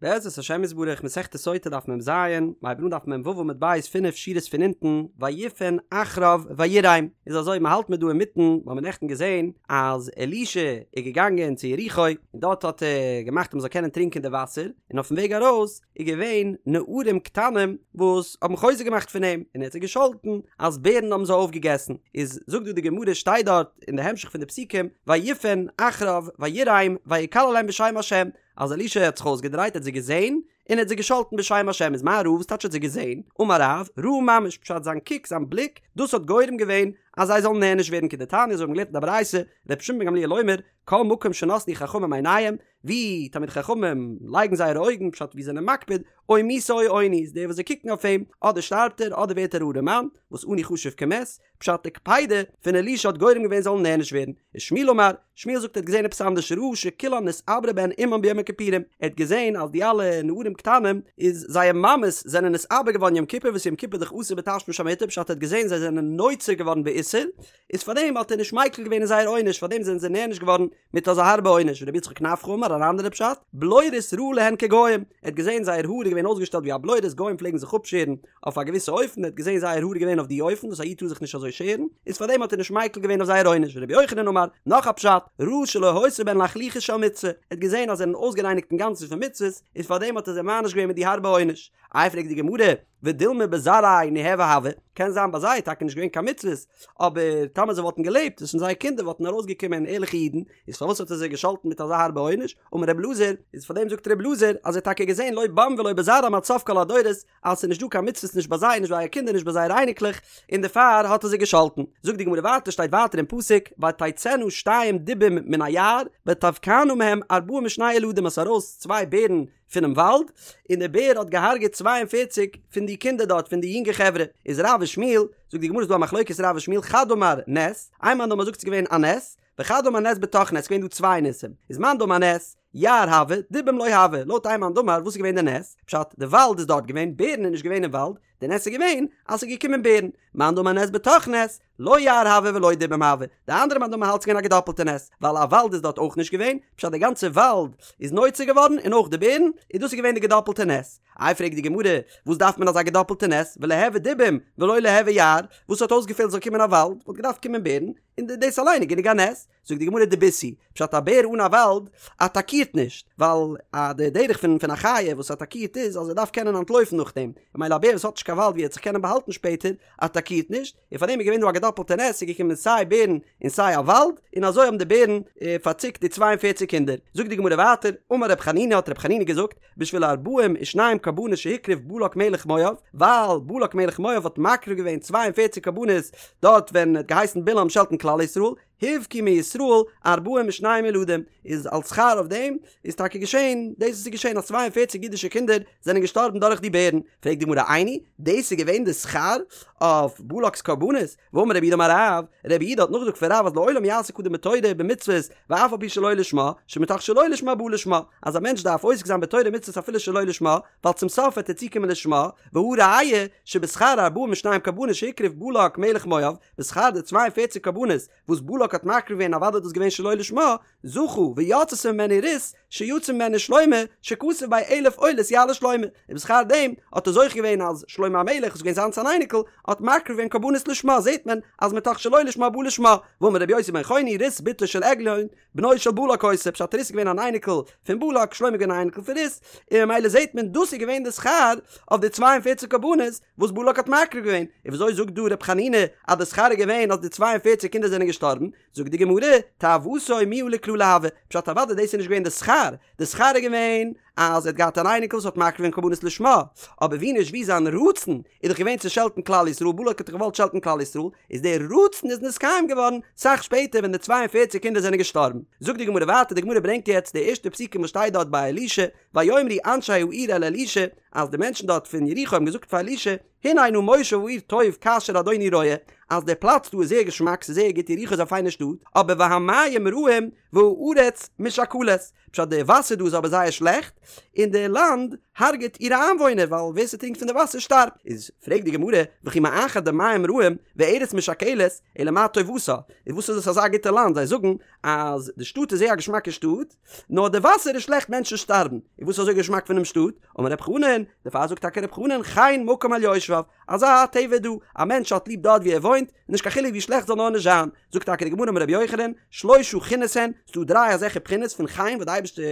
בעזרת השם יתברך מסכת סוטה דף מ ז, מ'הייבט אן דף מ ו עמוד ב' פינף שורות פון אונטן, ויפן אחריו ויראם, איז אזוי מ'האלט מיר דא אינמיטן, מ'האמיר נעכטן געזען אז אלישע איז געגאנגען צו יריחו, און דארט האט ער געמאכט אז מ'זאל קענען טרינקען די וואסער, און אויפן וועג ארויס איז געווען נערים קטנים וואס האבן חוזק געמאכט פון אים, און ער האט זיי געשאלטן אז בערן האבן זיי אויפגעגעסן, איז זאגט דא די גמרא שטייט דארט אין די המשך פון די פסוקים, ויפן אחריו ויראם ויקללם בשם השם, אז אלישע האט זיך אויסגעדרייט האט זיי געזען און ער האט זיי געשאלטן בשם השם איז מה ראה וואס טייטש האט זיי געזען? אמר רב, ראה ממש פשט זיין קוק זיין בליק דאס האט גורם געווען אז זיי זאלן נענש ווערן כדתניא אזוי האבן געלערנט אין די ברייתא רבי שמעון בן גמליאל אומר כל מקום שנתנו חכמים עיניהם ווי תלמידי חכמים לייגן זייערע אויגן פשט ווי זיי זענען מקפיד או מיתה או עוני איז דער וואס זיי קוקן אויף אים אדער שטארבט ער אדער ווערט ער ארעמאן וואס עני חשוב כמת פשט די קפידה פון אלישע האט גורם געווען זאלן נענש ווערן, ושמואל אמר, שמואל זאגט ער האט געזען עפעס אנדערש ראה שכולן נתעברו בהן אמן ביום הכיפורים, ער האט געזען אז די אלע נערים קטנים איז זייער מאמעס זענען נתעבר געווארן יום כיפור וואס יום כיפור איז דאך אסור בתשמיש המיטה פשט ער האט געזען זיי זענען נוצר געווארן באיסור איז פארדעם האט ער נישט מיקל געווען אין זייער עונש פארדעם זענען זיי נענש געווארן מיט אזא הארבע עונש ורבי יצחק נפחא אמר אן אנדערע פשט, בלורית ראה להן כגוים, ער האט געזען זייער האר איז געווען אויסגעשטעלט ווי א בלורית גוים פלעגן זיך אפשערן אויף א געוויסע אופן, ער האט געזען זייער האר איז געווען אויף די אופן וואס א איד טאר זיך נישט אזוי שערן, איז פארדעם האט ער נישט מיקל געווען אויף זייער עונש, ורבי יוחנן אמר, נאך א פשט, ראה שלא היתה בהן לחלוחית של מצוה, ער האט געזען אז זיי זענען אויסגערייניגט אינגאנצן פון מצוות, איז פארדעם האט ער זיי מעניש געווען מיט די הארבע עונש. איי פרעגט די גמרא, ודילמא בזרעייהו ניהוו הוו, קען זיין ביי זיי איז טאקע נישט געווען קיין מצוות, אבער טאמער זיי וואלטן געלעבט איז פון זייער קינדער וואלטן ארויסגעקומען ערליכע אידן, איז פארוואס האט ער זיי געשאלטן מיט אזא הארבע עונש? אמר רב אלעזר, איז פאר דעם זאגט רב אלעזר אז ער האט טאקע געזען לא בם ולא בזרעם עד סוף כל הדורות אז ס'איז נישט דא קיין מצוות נישט ביי זיי נישט ביי זייער קינדער נישט ביי זייערע אייניקלעך, און דערפאר האט ער זיי געשאלטן. זאגט די גמרא ווייטער שטייט ווייטער אין פסוק ותצאנה שתיים דובים מן היער ותבקענה מהם ארבעים ושני ילדים עס איז ארויס צוויי בערן פונעם וואלד, און דער בער האט געהארגעט 42 פון די קינדער דארט, פון די יונגע חברה. איז רב ושמואל, זאגט די גמרא איז דא א מחלוקת רב ושמואל, חד אמר נס, איין מאן דאמר זאגט ס'איז געווען א נס, וחד אמר נס בתוך נס, ס'געווען דא צוויי ניסים, איז מאן דאמר נס, יער הוה, דובים לא הוה, לויט איין מאן דאמר וואס איז געווען די נס? פשט, די וואלד איז דארט געווען, בערן איז נישט געווען אין וואלד, די נס איז געווען אז ס'איז געקומען בערן, מאן דאמר נס בתוך נס, לא יער הוה ולא דובים הוה, די אנדערע מאן דאמר האלט ס'געווען א געדאפלטע נס, ווייל א וואלד איז דארט אויך נישט געווען, פשט די גאנצע וואלד איז נוצר געווארן און אויך די בערן, און דאס איז געווען די געדאפלטע נס. איי פרעגט די גמרא, וואס דארף מען אזא געדאפלטע נס, וליהוי דובים ולא ליהוי יער, וואס האט אויסגעפעלט זאל קומען א וואלד, וואלט געדארפט קומען בערן, און דאס אליין איז גענוג א נס. זאגט די גמרא דבית הוא, פשט א בער אן א וואלד אטאקירט נישט, ווייל א די דרך פון פון א חיה וואס אטאקירט איז אז ער דארף קענען אנטלויפן נאכדעם, ממילא א בער וואס האט נישט קיין וואלד ווי ער וועט זיך קענען באהאלטן שפעטער, אטאקירט נישט, און פארדעם איז געווען דא א געדאפלטע נס, ס'איז געקומען סיי בערן און סיי א וואלד, און אזוי האבן די בערן פארציקט די צוויי און פערציג קינדער. זאגט די גמרא ווייטער, אמר רב חנינא האט רב חנינא געזאגט, בשביל ארבעים ושניים קרבנות שהקריב בלק מלך מואב, ווייל בלק מלך מואב האט מקריב געווען צוויי און פערציג קרבנות דארט ווען ער האט געהייסן בלעם שעלטן כלל ישראל, הובקעו מישראל ארבעים ושניים ילדים, איז אלס שכר אויף דעם איז טאקע געשען דאס וואס איז געשען אז 42 אידישע קינדער זענען געשטארבן דורך די בערן, פרעגט די גמרא איני, דאס איז געווען די שכר אויף בלק'ס קרבנות? והאמר רב יהודה אמר רב, רב יהודה האט נאכגעזאגט פון רב אז לעולם יעסוק אדם בתורה ובמצוות ואף על פי שלא לשמה, שמתוך שלא לשמה בא לשמה, אז א מענטש דארף עוסק זיין בתורה ומצוות אפילו שלא לשמה, ווייל צום סוף וועט ער צוקומען לשמה, והא ראיה, שבשכר ארבעים ושניים קרבנות שהקריב בלק מלך מואב, בשכר די 42 קרבנות וואס בלק האט מקריב געווען אוודאי איז דאס געווען שלא לשמה, זכה ויצתה ממנו רות שיצא ממנה שלמה שכתוב ביה אלף עולות יעלה שלמה, און בשכר דעם האט ער זוכה געווען אז שלמה המלך וואס איז געווען זיינס אן אייניקל האט מקריב געווען קרבנות לשמה זעט מען אז מתוך שלא לשמה בא לשמה, ואמר רבי יוסי בן חוני רות בתו של עגלון בנו של בלק היתה פשט רות איז געווען אן אייניקל פון בלק שלמה איז געווען אן אייניקל פון רות און ממילא זעט מען דאס איז געווען די שכר אויף די 42 קרבנות וואס בלק האט מקריב געווען, און וויאזוי זאגט דא ר' חנינא אז די שכר איז געווען אז די 42 קינדער זענען געשטארבן, זאגט די גמרא, תאוותו מיהא לקללה הוה, פשט אוודאי דאס איז נישט געווען די שכר, די שכר איז געווען אז ער האט געהאט אן אייניקל וואס האט מקריב געווען קרבנות לשמה, אבער ווי נישט ווי זיין רצון איז דאך געווען צו שעלטן כלל ישראל, בלק האט דאך געוואלט שעלטן כלל ישראל, איז דער רצון איז נתקיים געווארן סאך שפעטער ווען די 42 קינדער זענען געשטארבן. זאגט די גמרא ווייטער, די גמרא ברענגט יעצט די ערשטע פסוקים וואס שטייט דארט ביי אלישע, ויאמרו אנשי העיר אל אלישע, אז די מענטשן דארט פון יריחו האבן געזאגט פאר אלישע, הנה נא מושב העיר טוב כאשר אדוני רואה, אז דער פלאץ דא איז זייער געשמאק, ס'איז זייער גוט, יריחו איז א פיינע שטאט, אבער והמים רעים והארץ משקלת, פשט די וואסער דא איז אבער זייער שלעכט, און די לאנד הרג'ט אירע איינוואוינער ווייל ווער ס'טרינקט פון די וואסער שטארבט. איז פרעגט די גמרא, וכי מאחר דמים רעים וארץ משכלת, אלא מה טובתה, איז וואס איז עס אזא גוטע לאנד, זיי זאגן אז די שטאט איז זייער א געשמאקע שטאט, נאר די וואסער איז שלעכט מענטשן שטארבן, איז וואס איז אזוי געשמאק פונעם שטאט? אמר רב חנן, דערפאר זאגט טאקע רב חנן חן מקום על יושביו, אזא טבע איז דא, א מענטש האט ליב דארט ווי ער וואוינט, נישט קיין חילוק ווי שלעכט זאל נאר נישט זיין, זאגט טאקע די גמרא אמר רבי יוחנן, שלשה חינות הן, ס'דא דריי אזעלכע בחינות פון חן וואס די אייבערשטער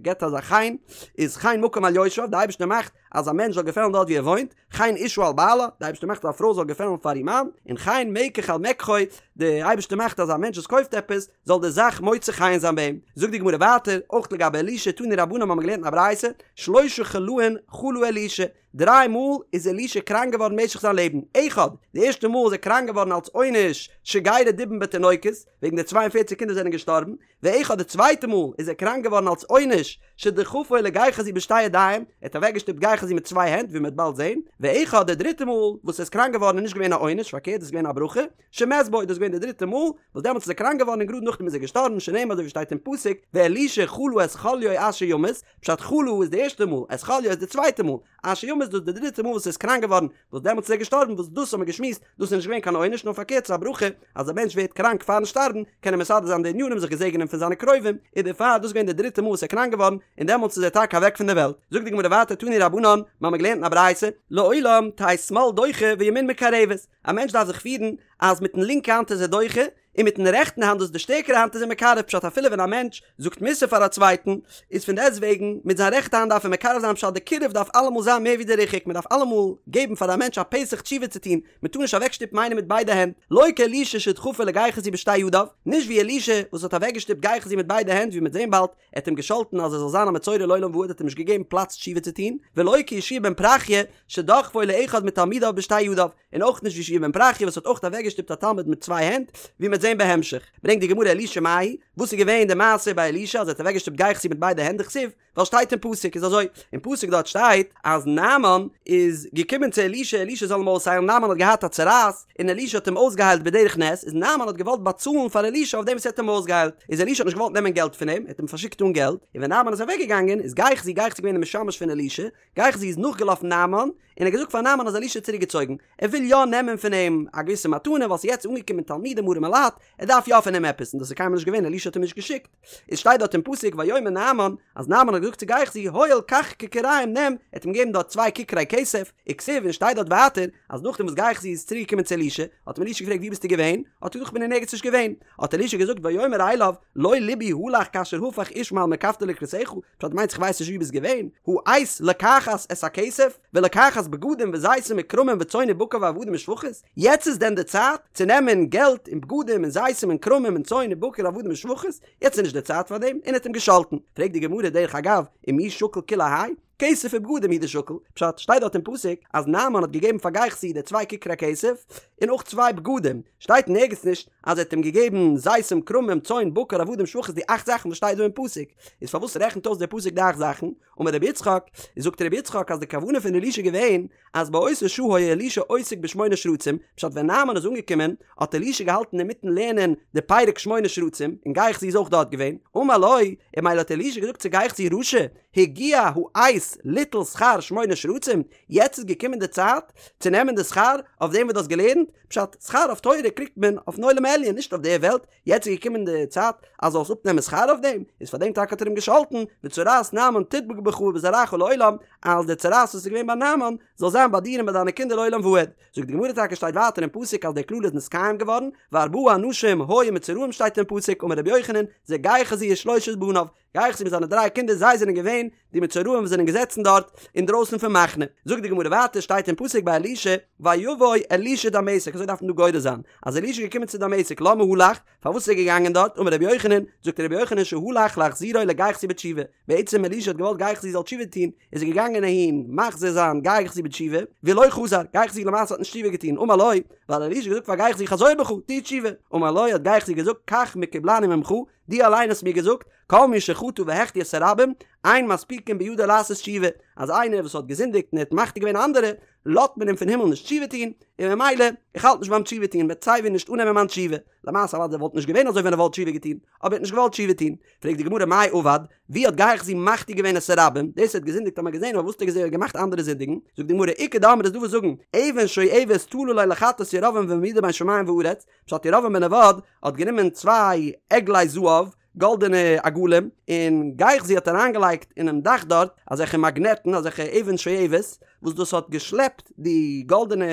געבט אזא חן, איז חן מקום על יושביו, די אייבערשטער מאכט אז א מענטש זאל געפעלן דארט ווי ער וואוינט, חן אשה על בעלה, די אייבערשטער מאכט אז א פרוי זאל געפעלן פאר איר מאן, און חן מקח על מקחו, די אייבערשטער מאכט אז א מענטש וואס קויפט עפעס, זאל די זאך מוצא חן זיין ביי אים. זאגט די גמרא ווייטער, אויך לגבי אלישע, תנו רבנן האבן מיר געלערנט אין א ברייתא, שלשה חלאין חלה אלישע, דריי מאל איז אלישע קראנק געווארן במשך זיין לעבן, אחד, די ערשטע מאל איז ער קראנק געווארן אלס עונש שגירה דובים בתינוקות, וועגן די 42 קינדער זענען געשטארבן, ואחד די צווייטע מאל איז ער קראנק געווארן אלס עונש שדחפו לגיחזי בשתי ידיים, ער האט אוועקגעשטופט גיחזי מיט צוויי הענט ווי מען וועט באלד זען, ואחד די דריטע מאל וואס ער איז קראנק געווארן איז נישט געווען א עונש פארקערט דאס איז געווען א ברכה, שמת בו דאס איז געווען די דריטע מאל וואס דעמאלטס איז ער קראנק געווארן און גראד נאכדעם איז ער געשטארבן שנאמר אזוי ווי שטייט אין פסוק ואלישע חלה את חליו אשר ימות, פשט חלה איז די ערשטע מאל, את חליו איז די צווייטע מאל, אשר ימות דאס איז די דריטע מאל וואס ער איז קראנק געווארן, וואס דעמאלטס איז ער געשטארבן, וואס דאס האבן מיר געשמועסט, דאס איז נישט געווען קיין עונש נאר פארקערט ס'איז א ברכה, אז א מענטש ווערט קראנק פארן שטארבן, קען ער מסדר זיין די ענינים זיך געזעגענען פון זיינע קרובים, איז דערפאר דאס געווען די דריטע מאל וואס ער איז קראנק געווארן, און דעמאלטס איז ער טאקע אוועק פון דער וועלט. זאגט די גמרא ווייטער תנו רבנן, מיר האבן געלערנט אין א ברייתא, לעולם תהא שמאל דוחה וימין מקרבת, א מענטש דארף זיך פירן אז מיטן לינקע האנט איז ער דוחה, און מיטן רעכטן האנט דאס איז די שטערקערע האנט איז ער מקרב פשט אפילו ווען א מענטש זאגט מוסר פאר א צווייטן איז פון דעסט וועגן מיט זיין רעכטע האנט דארף ער מקרב זיין פשט די קירוב דארף אלעמאל זיין מער ווי די ריחוק מען דארף אלעמאל געבן פאר א מענטש א פתח תשובה צו טון מען טאר נישט אוועקשטופן איינעם מיט ביידע הענט לא כאלישע שדחפו לגיחזי בשתי ידיו נישט ווי אלישע וואס האט אוועקגעשטופט גיחזי מיט ביידע הענט ווי מ'וועט זען באלד ער האט אים געשאלטן אז ער זאל זיין א מצורע לעולם ועד האט אים נישט געגעבן פלאץ תשובה צו טון ולא כיהושע בן פרחיה שדחפו לאחד מתלמידיו בשתי ידיו און אויך נישט ווי יהושע בן פרחיה וואס האט אויך אוועקגעשטופט א תלמיד מיט צוויי הענט, ווי מ'וועט זען בהמשך. ברענגט די גמרא אלישע מאי, וואס איז געווען די מעשה ביי אלישע אז ער האט אוועקגעשטופט גיחזי מיט ביידע הענט דכתיב, ווייל שטייט אין פסוק איז אזוי, אין פסוק דארט שטייט אז נעמן איז געקומען צו אלישע אלישע זאל אים אויסהיילן, נעמן האט געהאט א צרעת און אלישע האט אים אויסגעהיילט בדרך נס, איז נעמן האט געוואלט באצאלן פאר אלישע אויף דעם וואס ער האט אים אויסגעהיילט, איז אלישע האט נישט געוואלט נעמען געלט פון אים, ער האט אים פארשיקט אן געלט, און ווען נעמן איז אוועקגעגאנגען איז גיחזי, גיחזי געווען די משמש פון אלישע, גיחזי איז נאכגעלאפן נעמן, און ער האט געזאגט פאר נעמן אז אלישע האט צוריקגעצויגן, ער וויל יא נעמען פון אים א געוויסע מתנה ווייל ס'איז יעצט אנגעקומען תלמידים ארעמע לייט, ער דארף יא פון אים עפעס, און דאס איז קיינמאל נישט געווען, אלישע האט אים נישט געשיקט. עס שטייט דארט אין פסוק ויאמר נעמן, אז נעמן האט געזאגט צו גיחזי, הואל קח ככרים נעם, ער האט אים געגעבן דארט צוויי ככרי כסף, וכתיב און שטייט דארט ווייטער, אז נאכדעם וואס גיחזי איז צוריק געקומען צו אלישע, האט אים אלישע געפרעגט וואו ביסטו געווען? האט ער געזאגט כ'בין אין ערגעץ נישט געווען. האט אלישע געזאגט ויאמר אליו לא לבי הלך כאשר הפך איש מעל מרכבתו לקראתך, פשט מיינסט איך ווייס נישט וואו ביסט געווען, העת לקחת את הכסף, ולקחת בגדים וזיתים וכרמים וצאן ובקר ועבדים ושפחות, יעצט איז דען די צייט צו נעמען געלט און בגדים און זיתים און כרמים און צאן ובקר עבדים ושפחות, יעצט איז נישט די צייט פאר דעם, און האט אים געשאלטן. פרעגט די גמרא דרך אגב, ומי שקיל כולי האי? כסף ובגדים הוא דשקיל, פשט, שטייט דארט אין פסוק אז נעמן האט געגעבן פאר גיחזי די צוויי ככרי כסף, און אויך צוויי בגדים, שטייט אין ערגעץ נישט אז ער האט אים געגעבן זיתים כרמים צאן בקר עבדים שפחות די אכט זאכן וואס שטייט דא אין פסוק, איז פארוואס רעכנט אויס דער פסוק די אכט זאכן? אמר רבי יצחק, איז זאגט רבי יצחק אז די כוונה פון אלישע איז געווען אז באותה שעה היה אלישע עוסק בשמונה שרצים, פשט ווען נעמן איז אנגעקומען האט אלישע געהאלטן אינמיטן לערנען די פרק שמונה שרצים, און גיחזי איז אויך דארט געווען, אמר לו, און ממילא האט אלישע געזאגט צו גיחזי רשע, הגיע העת ליטול שכר שמונה שרצים, יעצט איז געקומען די צייט צו נעמען די שכר אויף דעם וואס דו האסט געלערנט, פשט, שכר אויף תורה קריגט מען אויפן עולם העליון נישט אויף דער וועלט, יעצט איז געקומען די צייט אז זאלסט אפנעמען שכר אויף דעם, איז פאר דעם טאקע האט ער אים געשאלטן, וצרעת נעמן תדבק בך ובזרעך לעולם, אז די צרעת וואס איז געווען ביי נעמן זאל זיין ביי דיר און ביי דיינע קינדער לעולם ועד. זאגט די גמרא טאקע שטייט ווייטער אין פסוק אז די קללה איז נתקיים געווארן, וארבעה אנשים היו מצורעים שטייט אין פסוק אמר רבי יוחנן, זה גיחזי ושלושת בניו, גיחזי מיט זיינע דריי קינדער זיי זענען געווען די מצורעים וואס זענען געזעצן דארט אינדרויסן פון מחנה. זאגט די גמרא ווייטער שטייט אין פסוק ביי אלישע ויבא אלישע דמשק אזוי דארף מען דא גורס זיין אז אלישע איז געקומען צו דמשק למה הלך פארוואס איז ער געגאנגען דארט אמר רבי יוחנן זאגט רבי יוחנן שהלך להחזירו לגיחזי בתשובה בעצם אלישע האט געוואלט גיחזי זאל תשובה טון איז ער געגאנגען אהין מחזיר זיין גיחזי בתשובה ולא חזר גיחזי למעשה האט נישט תשובה געטון אמר לו ווייל אלישע האט געזאגט פאר גיחזי חזור בך טו תשובה אמר לו האט גיחזי געזאגט כך מקובלני ממך דו אליין האסט מיר געזאגט, כל מי שחטא והחטיא את הרבים, אין מספיקין בידו לעשות תשובה, אז איינער וואס האט געזינדיגט און ער האט מחטיא געווען אנדערע, לאזט מען אים פון הימל נישט תשובה טון, און ממילא, איך האלט נישט ביים תשובה טון, מ'וועט סייווי נישט אננעמען מיין תשובה. למעשה אוודאי וואלט נישט געווען אזוי ווען ער וואלט תשובה געטון, אבער ער האט נישט געוואלט תשובה טון. פרעגט די גמרא מאי עבד, ווי האט גיחזי מחטיא געווען את הרבים? דאס ער האט געזינדיגט האט מען געזען, אבער וואס האט ער געמאכט אנדערע זינדיגן? זאגט די גמרא, איכא דאמרי איז דא וואס זאגן, אבן שואבת תלה ליה לחטאת ירבעם והעמידה בין שמים וארץ, פשט ירבעם בן נבט האט גענומען צוויי עגלי זהב, גאלדענע עגלים, און גיחזי האט אריינגעלייגט אינעם דאך דארט אזעלכע מאגנעטן, אזעלכע אבן שואבת, וואס דאס האט געשלעפט די גאלדענע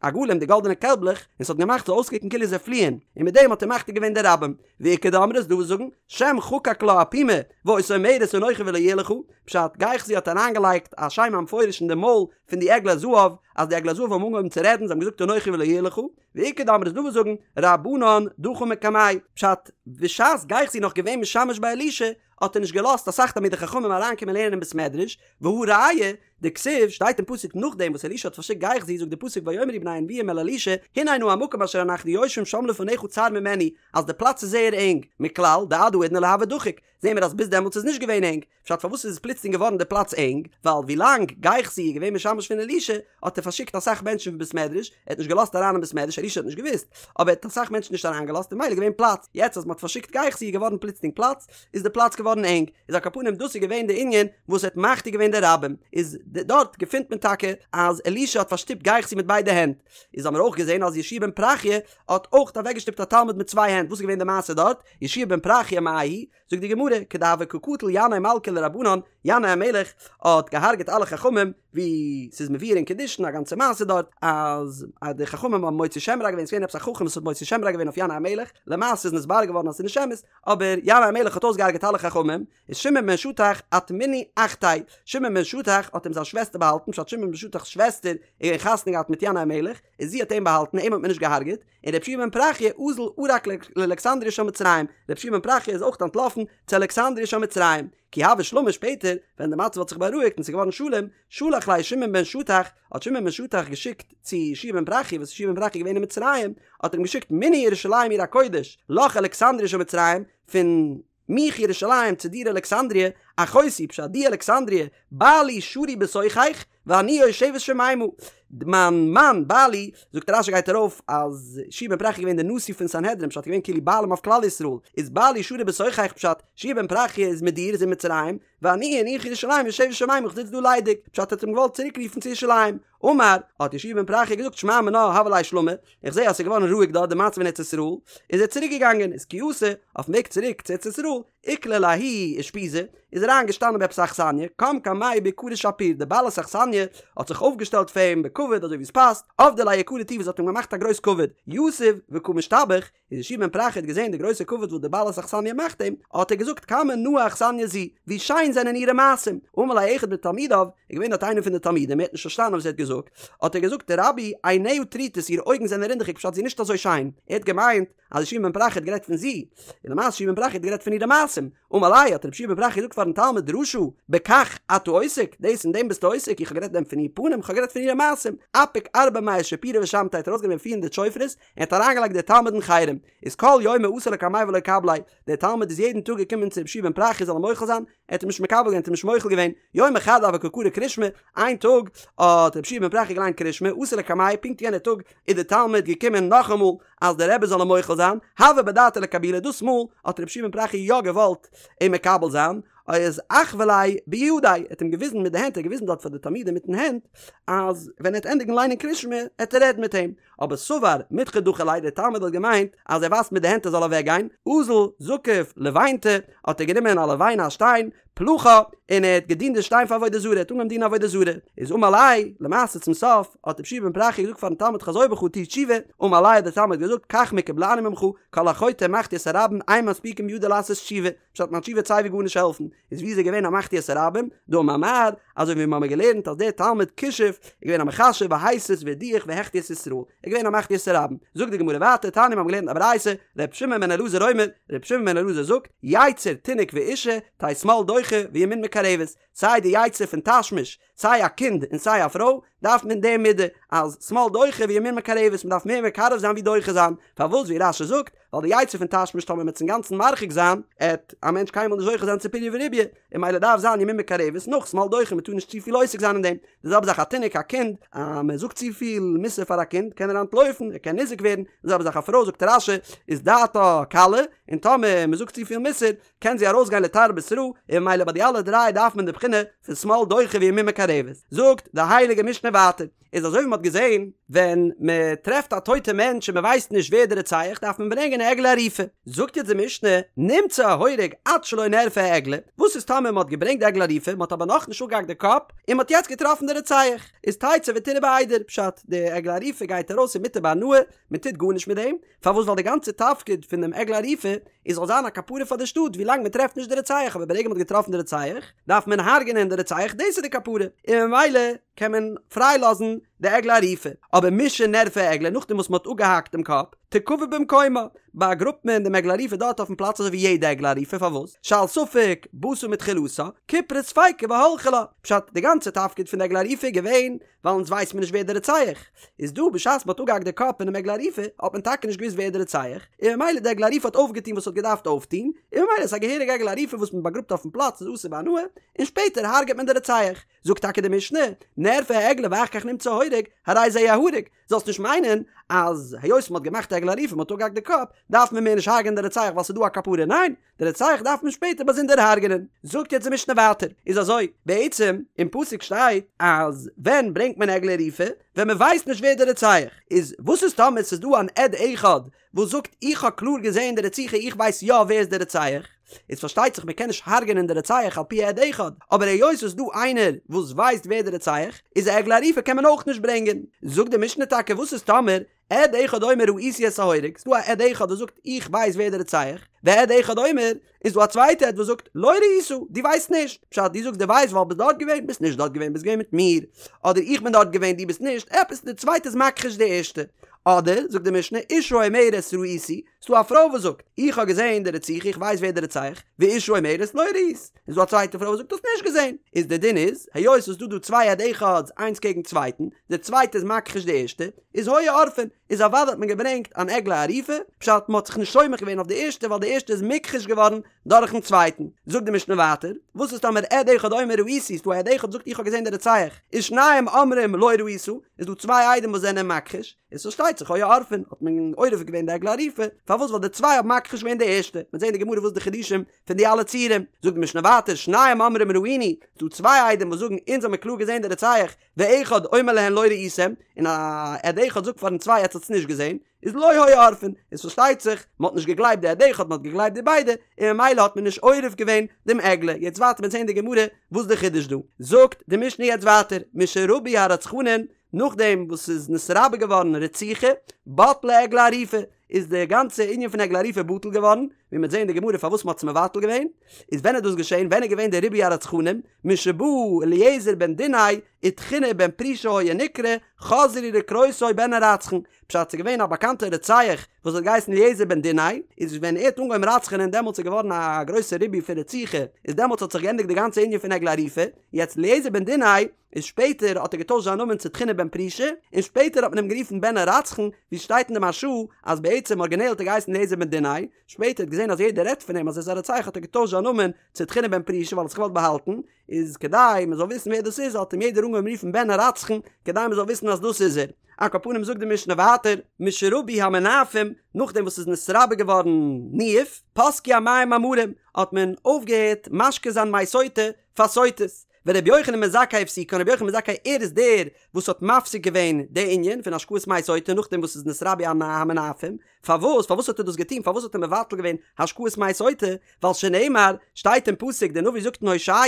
עגלים, די גאלדענע קעלבלעך, און ס'האט געמאכט ס'זאל אויסקוקן כאילו זיי פליען, און מיט דעם האט ער מחטיא געווען די רבים. ואיכא דאמרי איז דא וואס זאגן, שם חקק לה אפומה, והיתה אומרת אנכי ולא יהיה לך, פשט, גיחזי האט אריינגעלייגט א שם המפורש אין די מויל פון די עגלי זהב, אז די עגלי זהב האבן אנגעהויבן צו רעדן, זיי האבן געזאגט אנכי ולא יהיה לך, ואיכא דאמרי איז דא וואס זאגן, רבנן דחו מקמיה, פשט, בשעת גיחזי נאך געווען משמש ביי אלישע, האט ער נישט געלאזט אסאך תלמידי חכמים אריינקומען לערנען אין בית מדרש, והא ראיה, דכתיב, שטייט אין פסוק נאכדעם וואס אלישע האט פארשיקט גיחזי זאגט די פסוק ויאמרו בני הנביאים אל אלישע הנה נא המקום אשר אנחנו יושבים שם לפניך צר ממנו אז די פלאץ איז זייער ענג, מכלל דעד האידנא לא הוה דחיק, זעהן מיר אז ביז דעמאלטס איז נישט געווען ענג, פשט פארוואס איז עס פלוצלינג געווארן די פלאץ ענג, ווייל ווילאנג גיחזי איז געווען משמש פון אלישע האט ער פארשיקט אסאך מענטשן פון בית מדרש, ער האט נישט געלאזט אריין אין בית מדרש, אלישע האט נישט געוואוסט, אבער ער האט אסאך מענטשן נישט אריינגעלאזט און ממילא איז געווען פלאץ, יעצט אז מען האט פארשיקט גיחזי איז געווארן פלוצלינג פלאץ, איז די פלאץ געווארן ענג, איז על כל פנים דאס איז געווען די ענין וואס האט מחטיא געווען די רבים, איז דארט געפינט מען טאקע אז אלישע האט פארשטופט גיחזי מיט ביידע הענט, איז האמיר אויך געזען אז יהושע בן פרחיה האט אויך אוועקגעשטופט א תלמיד מיט צוויי הענט, וואס איז געווען די מעשה דארט, יהושע בן פרחיה מאי היא, זאגט די גמרא, כדהוה קא קטיל ינאי מלכא לרבנן, ינאי המלך האט געהארגעט אלע חכמים, ווי ס'איז מבואר אין קידושין א גאנצע מעשה דארט, אז די חכמים האבן מוציא שם רע געווען, ס'איז געווען עפעס א חכם וואס האט מוציא שם רע געווען אויף ינאי המלך, למעשה איז נתברר געווארן אז ס'איז נישט אמת, אבער ינאי המלך האט אויסגעהארגעט אלע חכמים, איז שמעון בן שטח אטמינהו אחתיה, שמעון בן שטח האט אים זיין שוועסטער באהאלטן, פשט שמעון בן שטח'ס שוועסטער איז געווען חתונה געהאט מיט ינאי המלך, און זי האט אים באהאלטן, אים האט מען נישט געהארגעט, און רבי יהושע בן פרחיה אזל ערק לאלכסנדריה של מצרים, רבי יהושע בן פרחיה איז אויך אנטלאפן צו אלכסנדריה של מצרים, כי הוה שלמא שפעטער ווען די מצב האט זיך בארואיגט און ס'איז געווארן שלום, שלח ליה שמעון בן שטח, האט שמעון בן שטח געשיקט צו יהושע בן פרחיה וואס יהושע בן פרחיה איז געווען אין מצרים, האט ער אים געשיקט מני ירושלים עיר הקודש, לך אלכסנדריה של מצרים, פון מיך ירושלים צו דיר אלכסנדריה, אחותי, פשט די אלכסנדריה, בעלי שרוי בתוכך, ואני יושבת שוממה, מיין מאן, בעלי, זאגט רש"י גייט ארויף אז יהושע בן פרחיה איז געווען דער נשיא פון סנהדרין פשט געווען כאילו בעלים אויף כלל ישראל, איז בעלי שרוי בתוכך פשט יהושע בן פרחיה איז מיט דיר איז אין מצרים, ואני און איך ירושלים יושבת שוממה איך זיץ דא ליידיג, פשט האט אים געוואלט צוריק רופן צו ירושלים, אמר, האט יהושע בן פרחיה געזאגט שמע מינה הוה ליה שלמא, איך זעה אז ס'איז געווארן רואיג דארט די מצב אין ארץ ישראל, איז ער צוריק געגאנגען, איז כי אתא, אויפן וועג צוריק צו ארץ ישראל, איקלע לההיא אושפיזא, איז אריין געשטאנען ביי עפעס א אכסניא, קם קמיה ביקרא שפיר, די בעלת אכסניא האט זיך אויפגעשטעלט פאר אים בכבוד אזוי ווי עס פאסט, עבדה ליה יקרא טובא, זי האט אים געמאכט א גרויס כבוד, יתיב וקא משתבח, איז יהושע בן פרחיה האט געזען די גרויסע כבוד וואס די בעלת אכסניא מאכט אים, האט ער געזאגט כמה נאה אכסניא זו, ווי שיין זענען אירע מעשים, אמר ליה אחד מתלמידיו, איז געווען דארט איינער פון די תלמידים, ער האט נישט פארשטאנען וואס ער האט געזאגט, האט ער געזאגט רבי עיניה טרוטות אירע אויגן זענען רינדעכיג פשט זי איז נישט אזוי שיין, ער האט געמיינט אז יהושע בן פרחיה האט גערעדט פון זי, און למעשה יהושע בן פרחיה האט גערעדט פון אירע מעשים, אמר ליה האט רבי יהושע בן פרחיה געזאגט פארן תלמיד רשע, בכך אתה עוסק, דאס אין דעם ביסטו עוסק, איך האב גערעדט דען פון איר פנים, איך האב גערעדט פון אירע מעשים, אפיק ארבע מאה שיפורי ושמתיה האט ארויסגענומען פיר הונדערט שופרות, און האט אריינגעלייגט דער תלמיד אין חרם, איז כל יומא אתא לקמיה ולא קבליה, דער תלמיד איז יעדן טאג געקומען צו רבי יהושע בן פרחיה זאל אים מוחל זיין, ער האט אים נישט מקבל געווען, האט אים נישט מוחל געווען, יומא חד הוה קא קרי קרישמע, איין טאג האט רבי יהושע בן פרחיה געליינט קרישמע, אתא לקמיה, פונקט יענער טאג איז דער תלמיד געקומען נאכאמאל אז דער רבי זאל אים מוחל זיין, הוה בדעתיה לקבולי, דאס מאל האט רבי יהושע בן פרחיה יא געוואלט אים מקבל זיין, איז אחוי ליה בידיה, ער האט אים געוויזן מיט די הענט, ער האט געוויזן דארט פאר די תלמידים מיטן הענט, אז ווען ער וועט ענדיגן ליינען קרישמע, וועט ער רעדן מיט אים. אבער סבר מידחא דחי ליה, דער תלמיד האט געמיינט אז ער ווייזט מיט די הענט ער זאל אוועק גיין, אזל זקף לבינתא, האט ער גענומען א לבנה א שטיין, פלחה, און ער האט געדינט די שטיין פאר עבודה זרה, ער האט אנגעהויבן דינען עבודה זרה, איז אמר ליה, למעשה צום סוף, האט רבי יהושע בן פרחיה געזאגט פארן תלמיד חזור בך טו תשובה, אמר ליה האט דער תלמיד געזאגט כך מקובלני ממך, כל החוטא ומחטיא את הרבים אין מספיקין בידו לעשות תשובה, פשט מיין תשובה וועט סייווי גארנישט העלפן, איז ווי איז ער געווען א מחטיא את הרבים, דאמר מר, אזוי ווי מיר האבן געלערנט אז דער תלמיד כישוף איז געווען א מכשף והסית והדיח והחטיא את ישראל, ער איז געווען א מחטיא את הרבים. זאגט די גמרא ווייטער, תניא מיר האבן געלערנט א ברייתא, ר' שמעון בן אלעזר אומר, ר' שמעון בן אלעזר זאגט, יצר תינוק ואשה, תהא שמאל דוחה וימין מקרבת, סיי די יצר פון תשמיש, סיי א קינד און סיי א פרוי, דארף מען די מידה אז שמאל דוחה וימין מקרבת, מען דארף מער מקרב זיין ווי דוחה זיין, פארוואס ווי רש"י זאגט, ווייל די יצר פון תשמיש טאמער מ'עט עס אינגאנצן מרחיק זיין, עט א מענטש קיינמאל נישט זוכה זיין צו פריה ורביה, און ממילא דארף זיין ימין מקרבת נאך שמאל דוחה מען טאר נישט צופיל עוסק זיין אין דעם, די זעלבע זאך א תינוק א קינד, אז מען זאגט צופיל מוסר פאר א קינד קען ער אנטלויפן ער קען ניזוק ווערן, די זעלבע זאך א פרוי זאגט רש"י איז דעתה קלה, און טאמער מען זאגט צופיל מוסר קען זי ארויסגיין לתרבות רעה, און ממילא ביי די אלע דריי דארף מען די בחינה פון שמאל דוחה וימין מקרבת. זאגט די הייליגע משנה ווייטער, איז אזוי ווי מען האט געזען, ווען מען טרעפט א טויטע מענטש און מען ווייסט נישט ווער די רוצח דארף מען ברענגען א עגלה ערופה. זאגט יעצט די משנה, נמצא ההורג עד שלא נערפה העגלה, וואס איז טאמער מען האט געברענגט די עגלה ערופה, מען האט אבער נאכנישט אפגעהאקט די קאפ, און מען האט יעצט געטראפן די רוצח, איז תצא ותרעה בעדר, פשט, די עגלה ערופה גייט ארויס און מותר בהנאה, מען טוט גארנישט מיט דעם, פארוואס ווייל די גאנצע תפקיד פון דעם עגלה ערופה איז זאל זיין א כפרה פאר די שטאט ווי לאנג מען טרעפט נישט די רוצח אבער ברגע מען האט געטראפן די רוצח דארף מען הרג'נען די רוצח דאס איז די כפרה און ממילא קען מען פריי לאזן די עגלה ערופה אבער משנערפה העגלה נאכדעם וואס מען האט אפגעהאקט דעם קאפ תקבר במקומה באגראבט מען דעם עגלה ערופה דארט אויפן פלאץ אזוי ווי יעדע עגלה ערופה פארוואס שעל ספק באת מתחילתה כיפרה ספיקא והלכה לה פשט די גאנצע תפקיד פון די עגלה ערופה איז געווען ווייל אונז ווייסט מען נישט ווער דער רוצח איז דא, בשעת מ'האט אפגעהאקט די קאפ פונעם עגלה ערופה האט מען טאקע נישט געוואוסט ווער דער רוצח, און ממילא די עגלה ערופה האט אויפגעטון וואס ס'האט געדארפט אויפטון, און ממילא איז א געהעריגע עגלה ערופה וואס מען באגראבט אויפן פלאץ איז אסור בהנאה, און שפעטער הרג'עט מען די רוצח. זאגט טאקע די משנה, נערפה העגלה ואחר כך נמצא ההורג, הרי זה יהרג, זאלסט נישט מיינען אז היות מ'האט געמאכט די עגלה ערופה מ'האט אפגעהאקט די קאפ, דארף מען מער נישט הרג'ענען די רוצח ווייל ס'איז דא א כפרה, ניין! די רוצח דארף מען שפעטער באזונדער הרג'נען. זאגט יעצט די משנה ווייטער, איז אזוי, בעצם אין פסוק שטייט אז ווען ברענגט מען עגלה ערופה? ווען מען ווייסט נישט ווער די רוצח איז, וואס איז טאמער ס'איז דא אן עד אחד וואס זאגט איך האב קלאר געזען די רציחה איך ווייס יא ווער איז די רוצח, איז פארשטייט זיך מען קען נישט הרג'נען די רוצח על פי עד אחד, אבער היות ס'איז דא איינער וואס ווייסט ווער די רוצח איז א עגלה ערופה קען מען אויך נישט ברענגען. זאגט די משנה טאקע וואס איז טאמער עד אחד אומר ראיתי את ההורג, ס'דא א עד אחד וואס זאגט איך ווייס ווער דער רוצח, ועד אחד אומר, איז דא א צווייטע עד וואס זאגט לא ראית, דו ווייסט נישט, פשט דו זאגסט דו ווייסט ווייל ביסט דארט געווען, ביסט נישט דארט געווען ביסט געווען מיט מיר, אדער איך בין דארט געווען דו ביסט נישט, עפעס די צווייטע איז מכחיש די ערשטע, אדער זאגט די משנה אשה אומרת ראיתי, ס'דא א פרוי וואס זאגט איך האב געזען די רציחה איך ווייס ווער דער רוצח, ואשה אומרת לא ראית, איז דא א צווייטע פרוי וואס זאגט האסט נישט געזען, איז די דין איז, היות ס'איז דא דא צוויי עד אחד'ס איינס קעגן צווייטן, די צווייטע איז מכחיש די ערשטע, איז היו עורפין, איז אוודאי האט מען געברענגט אן עגלה ערופה, פשט מ'האט זיך נישט סומך געווען אויף די ערשטע ווייל די ערשטע איז מוכחש געווארן דורכן צווייטן. זאגט די משנה ווייטער, וואס איז טאמער עד אחד אומר ראיתי, ס'דא א עד אחד זאגט איך האב געזען די רוצח, ושניים אומרים לא ראית, איז דא צוויי עדים וואס זענען מכחיש, איז פארשטייט זיך היו עורפין, האט מען עורף געווען די עגלה ערופה, פארוואס ווייל די צוויי האבן מכחיש געווען די ערשטע, מ'וועט זען אין די גמרא וואס די חידושים פון די אלע ציורים, זאגט די משנה ווייטער, שניים אומרים ראינו, ס'דא צוויי עדים וואס זאגן אונז האמיר קלאר געזען די רוצח, ואחד אומר להן לא ראיתם, און א עד אחד זאגט פארן צוויי עטס האטס נישט געזען, איז לא היו עורפין, איז פארשטייט זיך, מען האט נישט געגלייבט די עד אחד, מען האט געגלייבט די ביידע, און ממילא האט מען נישט עורף געווען דעם עגלה, יעצט ווייטער מ'וועט זען די גמרא וואס די חידוש דא. זאגט די משנה יעצט ווייטער, משרבו הרצחנין, נאכדעם וואס ס'איז נתרבה געווארן רציחה, בטלה עגלה ערופה, איז די גאנצע ענין פון עגלה ערופה בטל געווארן, ווי מ'וועט זען אין די גמרא פארוואס מ'האט עס מבטל געווען, איז ווען איז דאס געשען, ווען איז געווען די ריבוי הרצחנים, משבא אליעזר בן דינאי ותחינא בן פרישא היה נקרא, חזרו לקרותו בן הרצחן, פשט ס'איז געווען א באקאנטע רוצח וואס האט געהייסן אליעזר בן דינאי, איז ווען ער האט אנגעהויבן רצח'נען דעמאלטס איז געווארן א גרויסע ריבוי פון רציחה, איז דעמאלטס האט זיך געענדיגט די גאנצע ענין פון עגלה ערופה, יעצט אליעזר בן דינאי איז שפעטער האט ער געטוישט זיין נאמען צו תחינא בן פרישא, און שפעטער האט מען אים גערופן בן הרצחן, ווי שטייט אין די מהרש"א אז בעצם ארגינעל האט ער געהייסן אליעזר בן דינאי, שפעטער האט געזען אז יעדער רעדט פון אים אז ער איז א רוצח האט ער געטוישט זיין נאמען צו תחינא בן פרישא ווייל ער האט זיך געוואלט באהאלטן, איז כדי מען זאל וויסן ווער דאס איז האט אים יעדער אנגעהויבן רופן בן הרצחן כדי מען זאל וויסן אז דאס איז ער. על כל פנים זאגט די משנה ווייטער, משרבו המנאפים, נאכדעם וואס ס'איז נתרבה געווארן ניאוף, פסקו המים המרים, האט מען אויפגעהערט משקה זיין מי סוטה פאר סוטות. ורבי יוחנן בן זכאי הפסיקן, רבי יוחנן בן זכאי ער איז דער וואס האט מפסיק געווען די ענין פון השקאת מי סוטה נאכדעם וואס ס'איז נתרבו המנאפים, פארוואס פארוואס האט ער דאס געטון פארוואס האט ער מבטל געווען השקאת מי סוטה, ווייל שנאמר, שטייט אין פסוק דער נביא זאגט אין הושע,